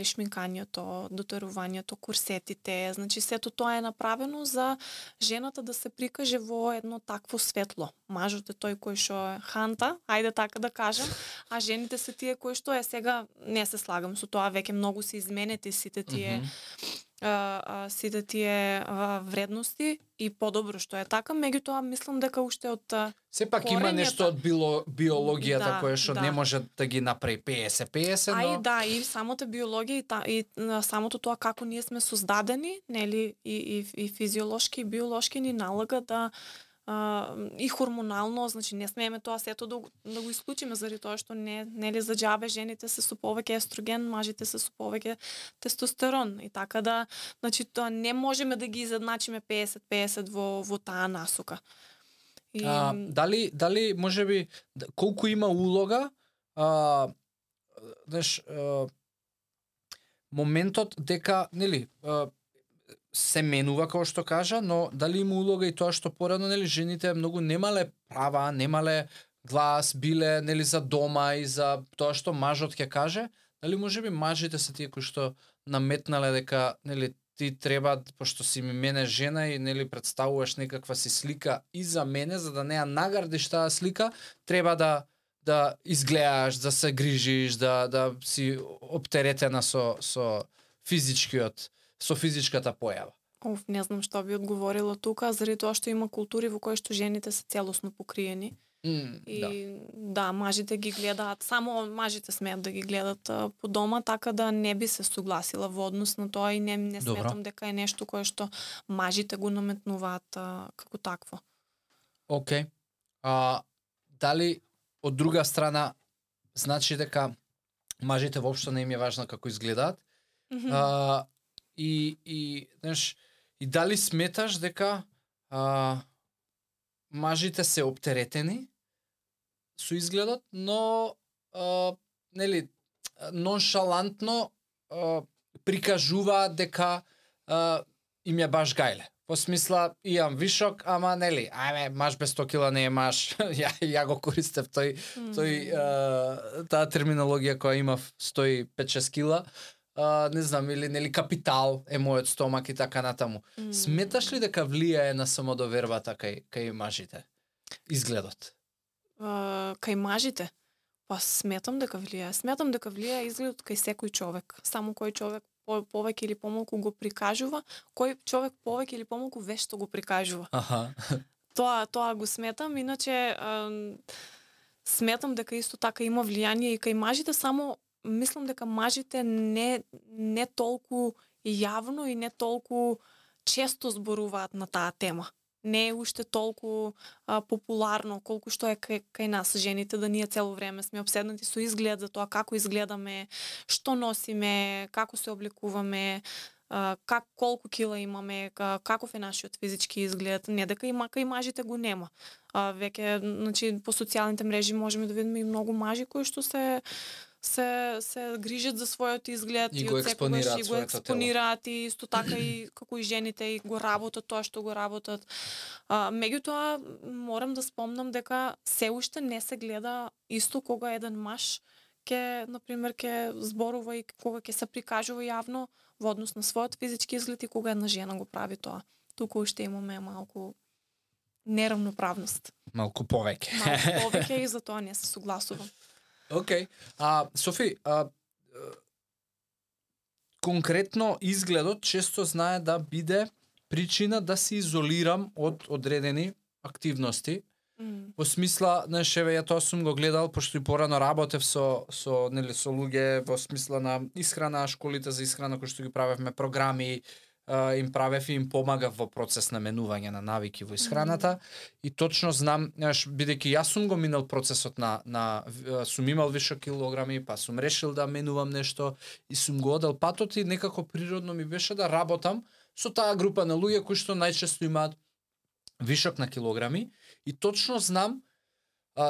шминкањето, дотерувањето, курсетите, значи сето тоа е направено за жената да се прикаже во едно такво светло. Мажот е тој кој што е ханта, ајде така да кажам, а жените се тие кои што сега не се слагам со тоа, веќе многу се изменети сите тие вредности и подобро што е така, меѓутоа мислам дека уште од сепак има нешто од биологијата кое што не може да ги направи 50-50, но... и самата биологија и самото тоа како ние сме создадени, нели, и физиолошки и биолошки ни налага да и хормонално, значи не смееме тоа сето да го исклучиме заради тоа што нели за џабе жените се со повеќе естроген, мажите се со повеќе тестостерон и така да, значи тоа не можеме да ги изедначиме 50-50 во таа насока. И... дали можеби колку има улога знаеш моментот дека нели се менува како што кажа, но дали има улога и тоа што порано нели жените многу немале права, немале глас, биле нели за дома и за тоа што мажот ќе каже, дали можеби мажите се тие кои што наметнале дека нели ти треба, пошто си мене жена и нели представуваш некаква си слика и за мене, за да не ја наградиш таа слика, треба да изгледаш, да се грижиш, да си оптеретена со физичката појава. Не знам што би одговорила тука, заради тоа што има култури во кои што жените се целосно покриени. Мажите ги гледаат, само мажите смеат да ги гледат по дома, така да не би се согласила во однос на тоа и не сметам дека е нешто кое што мажите го наметнуваат како такво. Океј. Дали од друга страна значи дека мажите воопшто не им е важно како изгледаат? И знаеш, и дали сметаш дека мажите се оптеретени со изгледот, но нели ноншалантно прикажуваат дека им е баш гајле. По смисла, имам вишок, ама нели, ајме, маж без 100 кила не е маж. ја го користев таа терминологија која имав 105-6 кила. Не знам, или нели капитал е мојот стомак и така натаму. Сметаш ли дека влијае на самодовербата кај мажите? Изгледот? Кај мажите? Па сметам дека влијае. Сметам дека влијае изгледот кај секој човек. Само кој човек повеќе или помалку го прикажува, кој човек повеќе или помалку вешто го прикажува. Аха. Тоа го сметам, иначе сметам дека исто така има влијание и кај мажите, само мислам дека мажите не толку јавно и не толку често зборуваат на таа тема. Не е уште толку популарно колку што е кај нас жените, да ние цело време сме обседнати со изглед, за тоа како изгледаме, што носиме, како се облекуваме, колку кила имаме, каков е нашиот физички изглед. Не дека кај мажите го нема. Веќе, значи, по социјалните мрежи можеме да видиме и многу мажи кои што се грижат за својот изглед и го експонираат и исто така и како и жените и го работат тоа што го работат. Меѓутоа морам да спомнам дека се уште не се гледа исто кога еден маж ќе зборува и кога ќе се прикажува јавно во однос на својот физички изглед и кога една жена го прави тоа. Тука уште имаме малку неравноправност. Малку повеќе. Малку повеќе и за тоа не се согласувам. Океј. Софи, конкретно изгледот често знае да биде причина да се изолирам од одредени активности. Во смисла, знаеш, ја тоа сум го гледал, пошто и порано работев со луѓе во смисла на исхрана, школите за исхрана кои што ги правевме, програми, им правев и им помагав во процес на менување на навики во исхраната. И точно знам, бидејќи јас сум го минал процесот сум имал више килограми, па сум решил да менувам нешто и сум го одел патот и некако природно ми беше да работам со таа група на луѓе кои што најчесто имаат вишок на килограми. И точно знам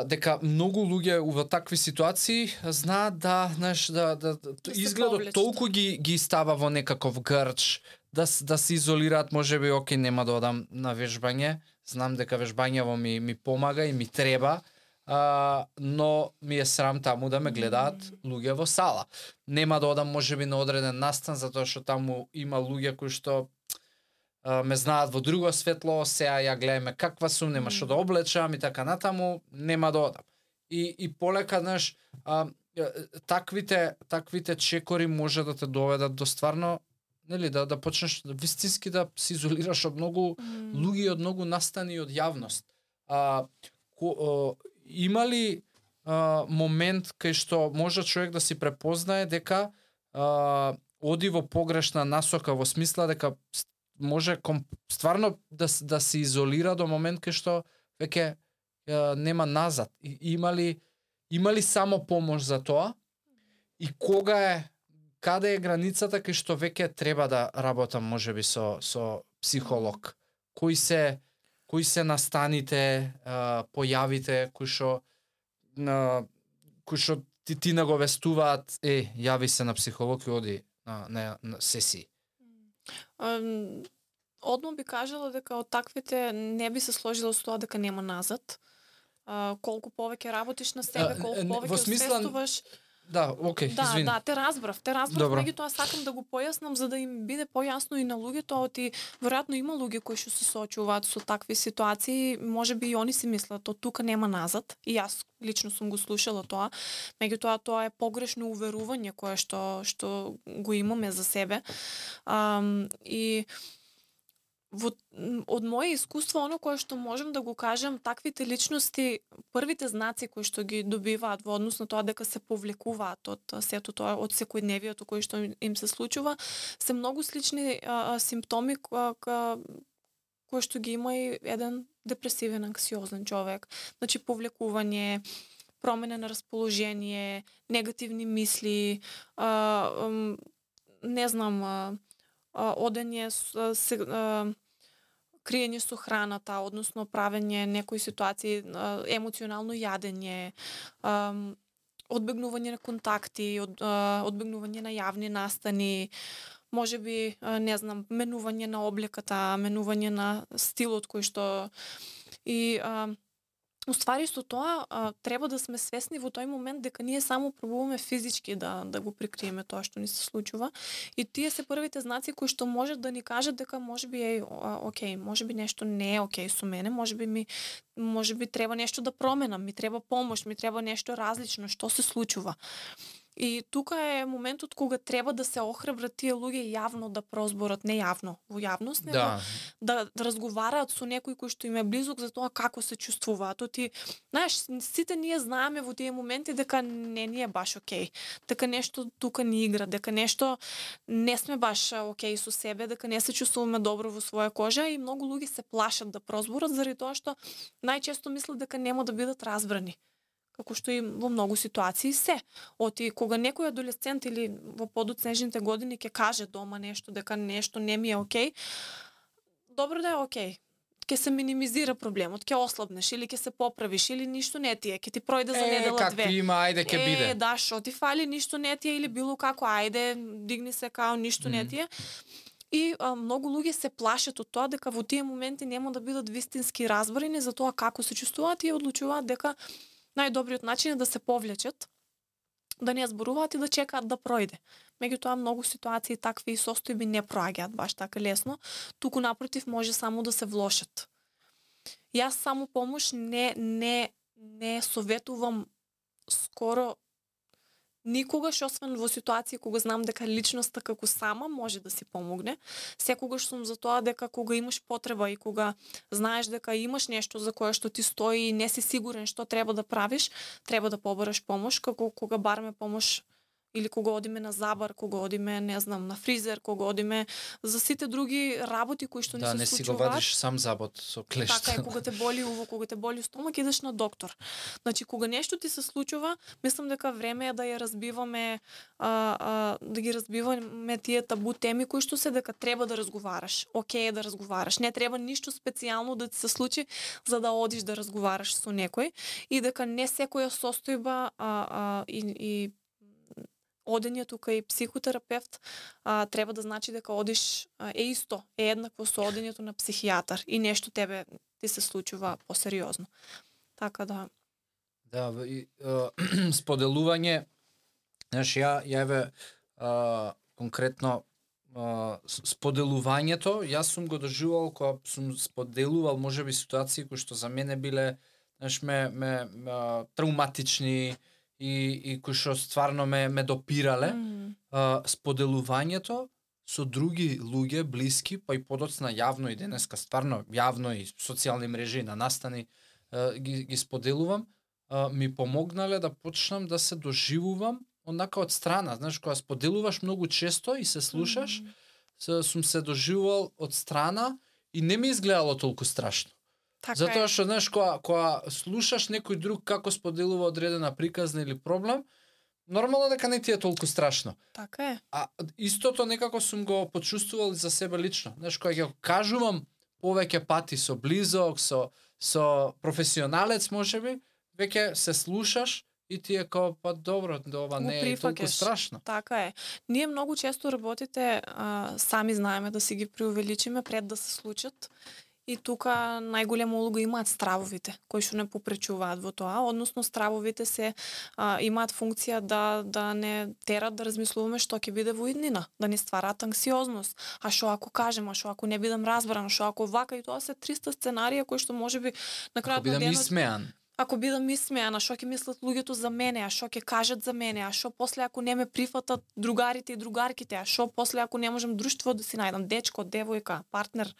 дека многу луѓе во такви ситуации знаат да изгледот толку ги става во некаков грч, да се изолираат, можеби окей, нема да одам на вежбање, знам дека вежбањево ми помага и ми треба, но ми е срам таму да ме гледаат луѓе во сала. Нема да одам можеби на одреден настан, затоа што таму има луѓе кои што ме знаат во друго светло, сега ја гледаме каква сум, нема што да облечам и така натаму, нема да одам. И полека, знаеш, таквите чекори може да те доведат до стварно, нели, да почнеш вистински да се изолираш од многу луѓе, од многу настани, од јавност. Има ли момент кај што може човек да си препознае дека оди во погрешна насока, во смисла дека може стварно да се изолира до момент кај што веќе нема назад? Има ли само помош за тоа? И каде е границата кај што веќе треба да работам можеби со психолог? Кои се настаните, појавите кои што ти наговестуваат, јави се на психолог и оди на сесии? Одма би кажала дека од таквите не би се сложила со тоа дека нема назад. Колку повеќе работиш на себе, колку повеќе освестуваш. Да, окей, извини. Да, те разбрав, меѓутоа сакам да го појаснам за да им биде појасно и на луѓето, веројатно има луѓе кои што се соочуваат со такви ситуации, можеби и они си мислат, тука нема назад, и јас лично сум го слушала тоа, меѓутоа тоа е погрешно уверување кое што го имаме за себе. И од моје искуство, оно кое што можам да го кажам, таквите личности, првите знаци кои што ги добиваат во однос на тоа дека се повлекуваат од сето тоа, од секојдневието кој што им се случува, се многу слични симптоми кои што ги има и еден депресивен, анксиозен човек. Значи повлекување, промена на расположение, негативни мисли, не знам, одење криење со храната, односно правење некои ситуации, емоционално јадење, одбегнување на контакти, одбегнување на јавни настани, можеби, не знам, менување на облеката, менување на стилот кој што и уствари со тоа треба да сме свесни во тој момент дека ние само пробуваме физички да го прикриеме тоа што ни се случува и тие се првите знаци кои што можат да ни кажат дека можеби е окей, можеби нешто не е окей со мене, можеби треба нешто да променам, ми треба помош, ми треба нешто различно, што се случува. И тука е моментот кога треба да се охрабрат тие луѓе јавно да прозборат, не јавно, во јавност, него да разговараат со некој кој што им е близок за тоа како се чувствуваат. Знаеш, сите ние знаеме во тие моменти дека не ни е баш окей, дека нешто тука ни игра, дека нешто не сме баш окей со себе, дека не се чувствуваме добро во своја кожа и многу луѓе се плашат да прозборат заради тоа што најчесто мислат дека нема да бидат разбрани. Како што и во многу ситуации се. Кога некој адолесцент или во подоцнежните години ќе каже дома нешто, дека нешто не ми е окей, добро да е окей. Ќе се минимизира проблемот, ќе ослабнеш или ќе се поправиш или ништо не ти е, ќе ти пројде за недела две. Како има, ајде ќе биде. Да, шо ти фали, ништо не ти е или било како, ајде, дигни се као ништо не ти е. И многу луѓе се плашат од тоа дека во тие моменти нема да бидат вистински разборени за тоа како се чувствуваат и одлучуваат дека најдобриот начин е да се повлечат, да не зборуваат и да чекаат да пројде. Меѓутоа многу ситуации такви состојби не проаѓаат баш така лесно, туку напротив може само да се влошат. Јас само помош не советувам скоро никогаш, освен во ситуација кога знам дека личноста како сама може да си помогне. Секогаш сум за тоа дека кога имаш потреба и кога знаеш дека имаш нешто за кое што ти стои и не си сигурен што треба да правиш, треба да побараш помош, како кога бараме помош или кога одиме на забар, кога одиме, не знам, на фризер, кога одиме за сите други работи кои што ни се случуваат. Да, не си го вадиш сам забот со клешта. Така е, кога те боли уво, кога те боли стомак, идеш на доктор. Значи, кога нешто ти се случува, мислам дека време е да ја разбиваме, да ги разбиваме тие табу теми кои што се дека треба да разговараш. Окей е да разговараш. Не треба ништо специјално да ти се случи за да одиш да разговараш со некој и дека не секоја состојба и одењето кај психотерапевт треба да значи дека одиш е исто, е еднакво со одењето на психијатар и нешто тебе ти се случува посериозно. Така да. Да, споделување, знаеш, ја конкретно споделувањето, јас сум го доживувал кога сум споделувал можеби ситуации кои што за мене биле, знаеш, ме травматични, и кои што стварно ме допирале, споделувањето со други луѓе, блиски, па и подоцна јавно и денеска стварно јавно и социјални мрежи на настани ги споделувам, ми помогнале да почнам да се доживувам однака од страна. Знаеш, кога споделуваш многу често и се слушаш, сум се доживувал од страна и не ми изгледало толку страшно. Така затоа што, знаеш, кога слушаш некој друг како споделува одредена приказна или проблем, нормално дека не ти е толку страшно. Така е. А истото некако сум го почувствувал за себе лично. Знаеш, кога ќе кажувам повеќе пати со близок, со професионалец можеби, веќе се слушаш и ти е као, па добро, ова не е толку страшно. Така е. Ние многу често работите сами знаеме да си ги преувеличиме пред да се случат. И тука најголема улога имаат стравовите, кои што не попречуваат во тоа, односно стравовите се имаат функција да не терат да размислуваме што ќе биде во иднина, да не ствараат анксиозност. А што ако кажем, а што ако не бидам разбран, што ако вака, и тоа се 300 сценарија кои што можеби на крајот на денот исмеан. Ако бидам исмеана, што ќе мислат луѓето за мене, а што ќе кажат за мене, а што после ако не ме прифатат другарите и другарките, а што после ако не можам друштво да си најдам, дечко, девојка, партнер.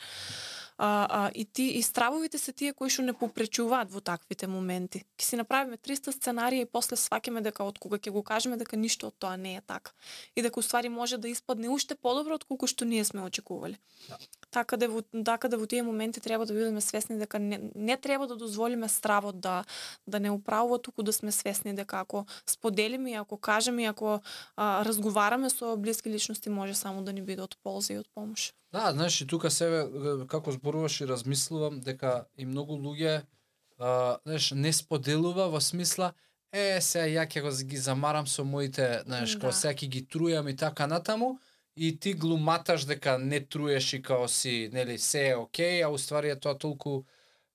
И стравовите се тие кои што не попречуваат во таквите моменти. Ќе си направиме 300 сценарија и после сваќаме дека од кога ќе го кажеме дека ништо од тоа не е така. И дека уствари може да испадне уште подобро од колку што ние сме очекувале. Така да во тие моменти треба да бидеме свесни дека не треба да дозволиме стравот да не управува, туку да сме свесни дека ако споделиме и ако кажеме и ако разговараме со блиски личности може само да ни биде од полза и од помош. Да, знаеш, и тука себе како зборуваш и размислувам дека и многу луѓе знаеш, не споделува во смисла сега ја ќе ги замарам со моите, знаеш, као сега ќе ги трујам и така натаму, и ти глуматаш дека не труеш и као си, нели, се е окей, а уствари е тоа толку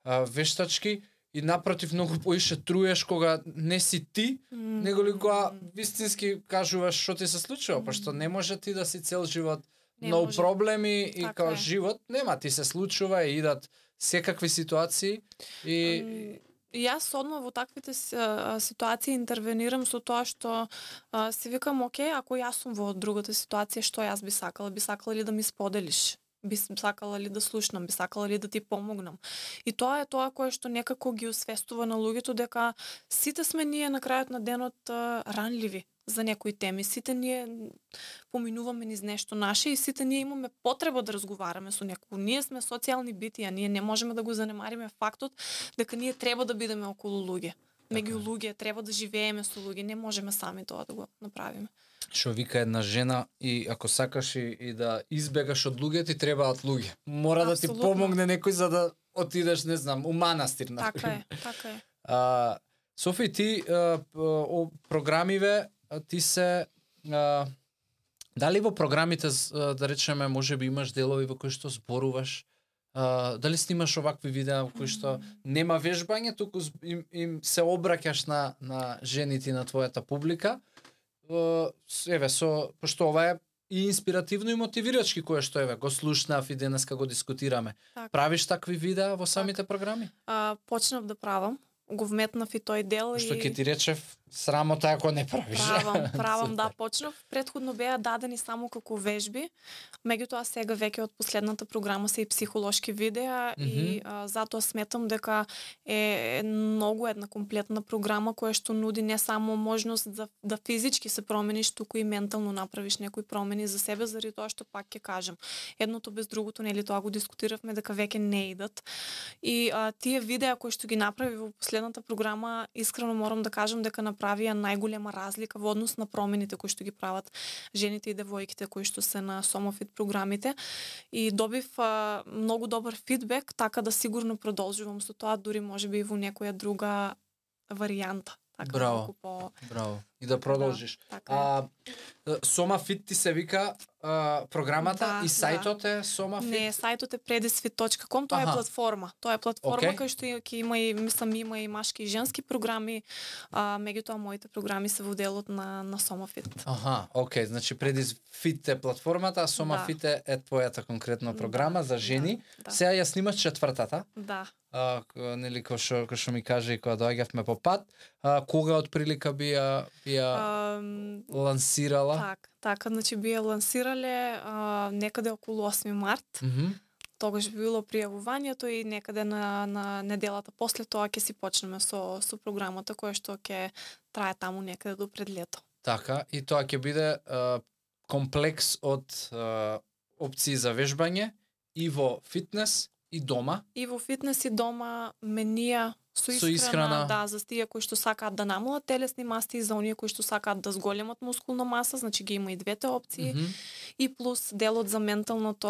вештачки, и напротив многу поише труеш кога не си ти, него ли кога вистински кажуваш што ти се случува, пошто не може ти да си цел живот но проблеми и као живот нема, ти се случува и идат секакви ситуации и јас одма во таквите ситуации интервенирам со тоа што си викам, окей, ако јас сум во другата ситуација, што јас би сакала ли да ми споделиш? Би сакала ли да слушнам, би сакала ли да ти помогнам. И тоа е тоа кое што некако ги освестува на луѓето дека сите сме ние на крајот на денот ранливи за некои теми. Сите ние поминуваме низ нешто наше и сите ние имаме потреба да разговараме со некој. Ние сме социјални битија, ние не можеме да го занемариме фактот дека ние треба да бидеме околу луѓе. Меѓу луѓе, треба да живееме со луѓе, не можеме сами тоа да го направиме. Што вика една жена, и ако сакаш и да избегаш од луѓе, ти требаат луѓе. Мора да ти помогне некој за да отидеш, не знам, у манастир. Така е. Софи, ти програмиве, ти се дали во програмите, да речеме, можеби имаш делови во кои што зборуваш, дали снимаш овакви видеа во кои што нема вежбање, туку им се обраќаш на жените на твојата публика, пошто ова е и инспиративно и мотивирачки, кое што го слушнав и денеска го дискутираме. Правиш такви видеа во самите програми? Почнав да правам. Го вметнав и тој дел. Што ќе ти речев, срамота ако не правиш. Правам, да, почнав. Предходно беа дадени само како вежби, меѓутоа сега веќе од последната програма се и психолошки видеа и затоа сметам дека е многу една комплетна програма која што нуди не само можност да физички се промениш, туку и ментално направиш некои промени за себе, заради тоа што пак ќе кажам. Едното без другото, нели, тоа го дискутиравме дека веќе не идат. И тие видеа кои што ги направи во последната програма, искрено морам да кажам дека направија најголема разлика во однос на промените кои што ги прават жените и девојките кои што се на Сомофит програмите, и добив многу добар фидбек, така да сигурно продолжувам со тоа, дури можеби и во некоја друга варијанта. Така, браво, браво. И да продолжиш. Да, Сомафит ти се вика програмата, и сајтот е Сомафит? Не, сајтот е predisfit.com, тоа е платформа. Тоа е платформа кај што ќе има и, мислам, има и машки и женски програми, меѓутоа моите програми се во делот на Сомафит. Окей, значи Predisfit е платформата, а Сомафит е твојата конкретна програма за жени. Сега ја снимаш четвртата. Да. Нели, кој што ми каже и кога доаѓавме по пат, кога отприлика би ја лансирала? Така, значи би ја лансирале некаде околу 8 март. Тогаш би било пријавувањето и некаде на неделата после тоа ќе си почнеме со програмата која што ќе трае таму некаде до пред лето. Така, и тоа ќе биде комплекс од опции за вежбање и во фитнес и дома. И во фитнес и дома менија со исхрана, да, за тие кои што сакаат да намалат телесни маси и за оние кои што сакаат да зголемат мускулна маса, значи ги има и двете опции. И плюс делот за менталното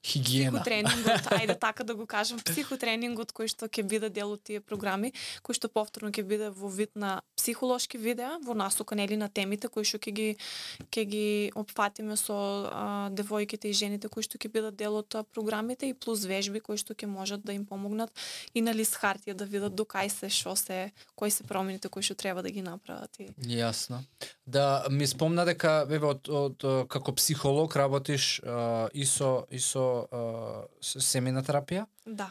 психотренингот, ајде така да го кажам, психотренингот кој што ќе биде дел од тие програми, кој што повторно ќе биде во вид на психолошки видеа, во насока, нели, на темите кои што ќе ги опфатиме со девојките и жените кои што ќе бидат дел од програмите, и плюс вежби кои што ќе можат да им помогнат и на лист хартија да видат до кај се, што се, кои се промените кои што треба да ги направат. Јасно. Да ми спомна дека од како психолог работиш и со семејна терапија? Да.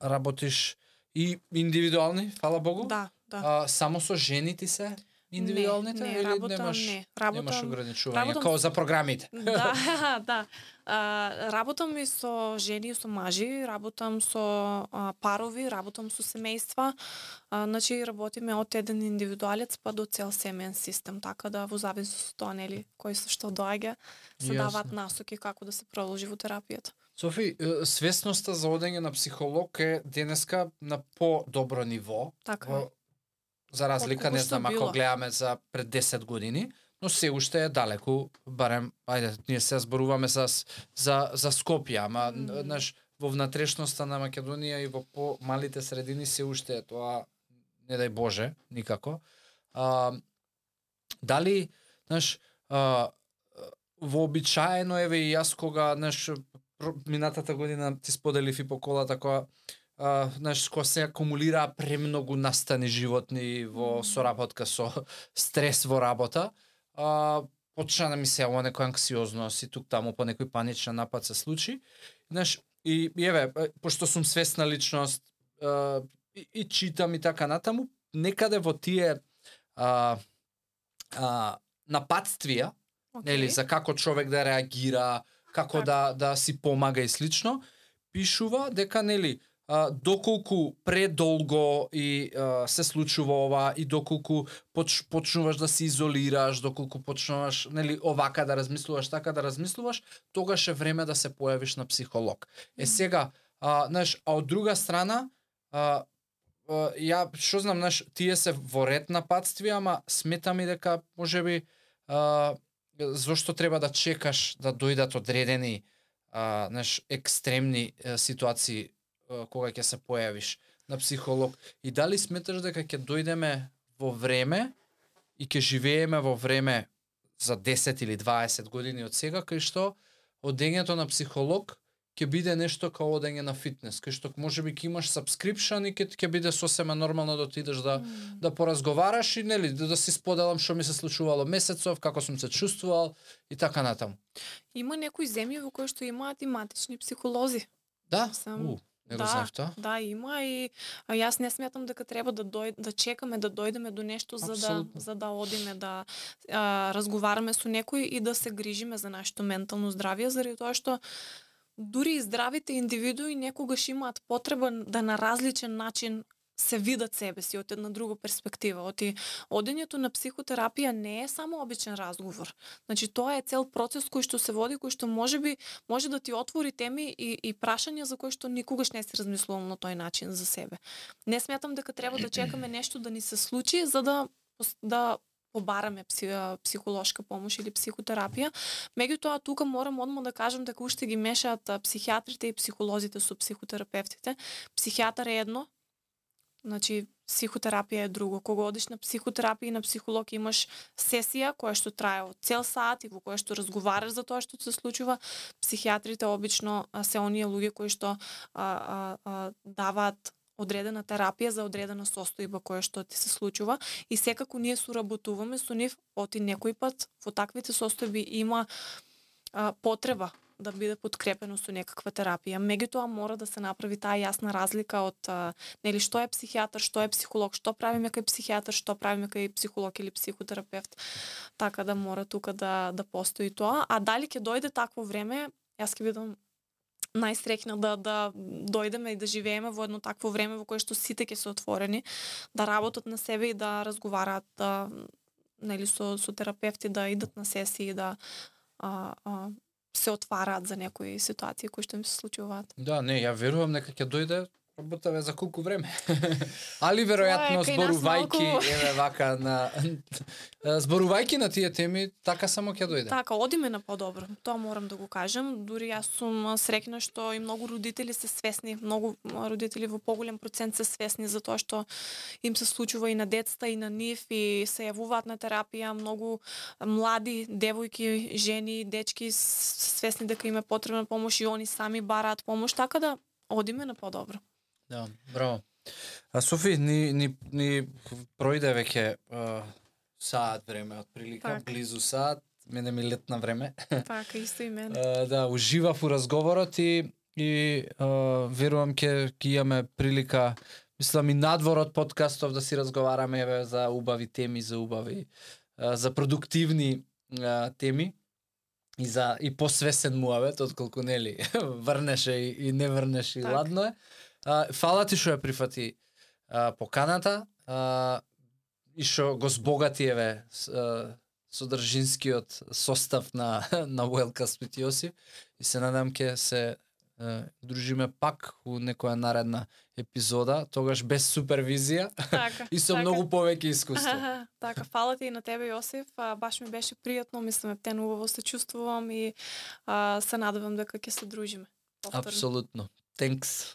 Работиш и индивидуални, фала Богу? Да. Само со жени ти се индивидуалните? Не, или немаш ограничување, како за програмите? Да. Работам и со жени и со мажи, работам со парови, работам со семејства. Значи работиме од еден индивидуалец па до цел семеен систем, така да во зависност од тоа, нели, кој се што доаѓа, се даваат насоки како да се продолжи во терапијата. Софи, свесноста за одење на психолог е денеска на по-добро ниво. Така. За разлика, не знам, ако гледаме за пред 10 години, но се уште е далеку, барем, ајде, ние се зборуваме за Скопје, ама, знаеш, во внатрешноста на Македонија и во помалите средини се уште е тоа, не дај Боже, никако. Дали, знаеш, вообичаено, еве и јас кога, знаеш, минатата година ти споделив и по колата која, знаеш, кога се акумулира премногу настани животни во соработка со стрес во работа, почна да ми се ова некоја анксиозност и тук таму по некој паничен напад се случи. Знаеш, и еве, пошто сум свесна личност и читам и така натаму, некаде во тие нападствија, нели, за како човек да реагира, како да си помага и слично, пишува дека, нели, доколку предолго и се случува ова и доколку почнуваш да се изолираш, доколку почнуваш, нели, овака да размислуваш, така да размислуваш, тогаш е време да се појавиш на психолог. Сега, знаеш, а од друга страна, ја што знам, знаеш, тие се во ред нападствија, ама сметам и дека можеби зошто треба да чекаш да дојдат одредени знаеш, екстремни ситуации кога ќе се појавиш на психолог, и дали сметаш дека ќе дојдеме во време и ќе живееме во време за 10 или 20 години од сега, кај што одењето на психолог ќе биде нешто као одење на фитнес, кај што можеби ќе имаш subscription и ќе биде сосема нормално да отидеш да поразговараш и, нели, да си споделам што ми се случувало месецов, како сум се чувствувал и така натаму. Има некои земји во кои што имаат и матични психолози. Да? Не го знаев тоа? Да, има, и јас не сметам дека треба да чекаме да дојдеме до нешто за да одиме да разговараме со некој и да се грижиме за нашето ментално здравје, заради тоа што дури и здравите индивидуи некогаш имаат потреба да на различен начин се видат себе си од една друга перспектива. Одењето на психотерапија не е само обичен разговор. Значи, тоа е цел процес кој што се води, кој што може да ти отвори теми и прашања за кои што никогаш не си размислувал на тој начин за себе. Не сметам дека треба да чекаме нешто да ни се случи за да побараме психолошка помош или психотерапија. Меѓутоа, тука морам одма да кажам дека уште ги мешаат психијатрите и психолозите со психотерапевтите. Психијатар е едно, значи психотерапија е друго. Кога одиш на психотерапија и на психолог имаш сесија која што трае од цел сат и во која што разговараш за тоа што се случува. Психијатрите обично се оние луѓе кои што даваат одредена терапија за одредена состојба која што ти се случува, и секако ние соработуваме со нив, оти некој пат во таквите состојби има потреба да биде подкрепено со некаква терапија. Меѓутоа мора да се направи таа јасна разлика од нели што е психијатар, што е психолог, што правиме кај психијатар, што правиме кај психолог или психотерапевт. Така да мора тука да постои тоа. А дали ќе дојде такво време, јас ќе бидам најсреќна да дојдеме и да живееме во едно такво време во кое што сите ќе се отворени, да работат на себе и да разговараат нели со терапевти, да идат на сесии, да се отвараат за некои ситуации кои што им се случуваат. Да, не, ја верувам дека ќе дојде, работаве за колку време. Али веројатно зборувајќи еве вака зборувајќи на тие теми, така само ќе дојде. Така, одиме на подобро. Тоа морам да го кажам. Дури јас сум среќна што и многу родители се свесни, многу родители во поголем процент се свесни за тоа што им се случува и на децата и на нив, и се јавуваат на терапија. Многу млади девојки, жени, дечки свесни дека им е потребна помош и они сами бараат помош, така да одиме на подобро. Да, браво. Софи, ни пројде веќе саат време, отприлика, так. Близу саат, мене ми летна време. Така, исто и мене. Да, уживав у разговорот и верувам ќе имаме прилика, мислам и надвор од подкастов да си разговараме еве за убави теми, за продуктивни теми и посвесен муавет, отколку нели врнеше и не врнеше, так. И ладно е. Фала ти што ја прифати поканата и што го збогати еве содржинскиот состав на Wellcast with Јосиф, и се надам ќе се дружиме пак у некоја наредна епизода, тогаш без супервизија Така, и со така. многу повеќе искуство. Така, фала ти и на тебе, Јосиф. Баш ми беше пријатно, мислам, птенувано се чувствувам и се надевам дека ќе се дружиме повторно. Апсолутно. Thanks.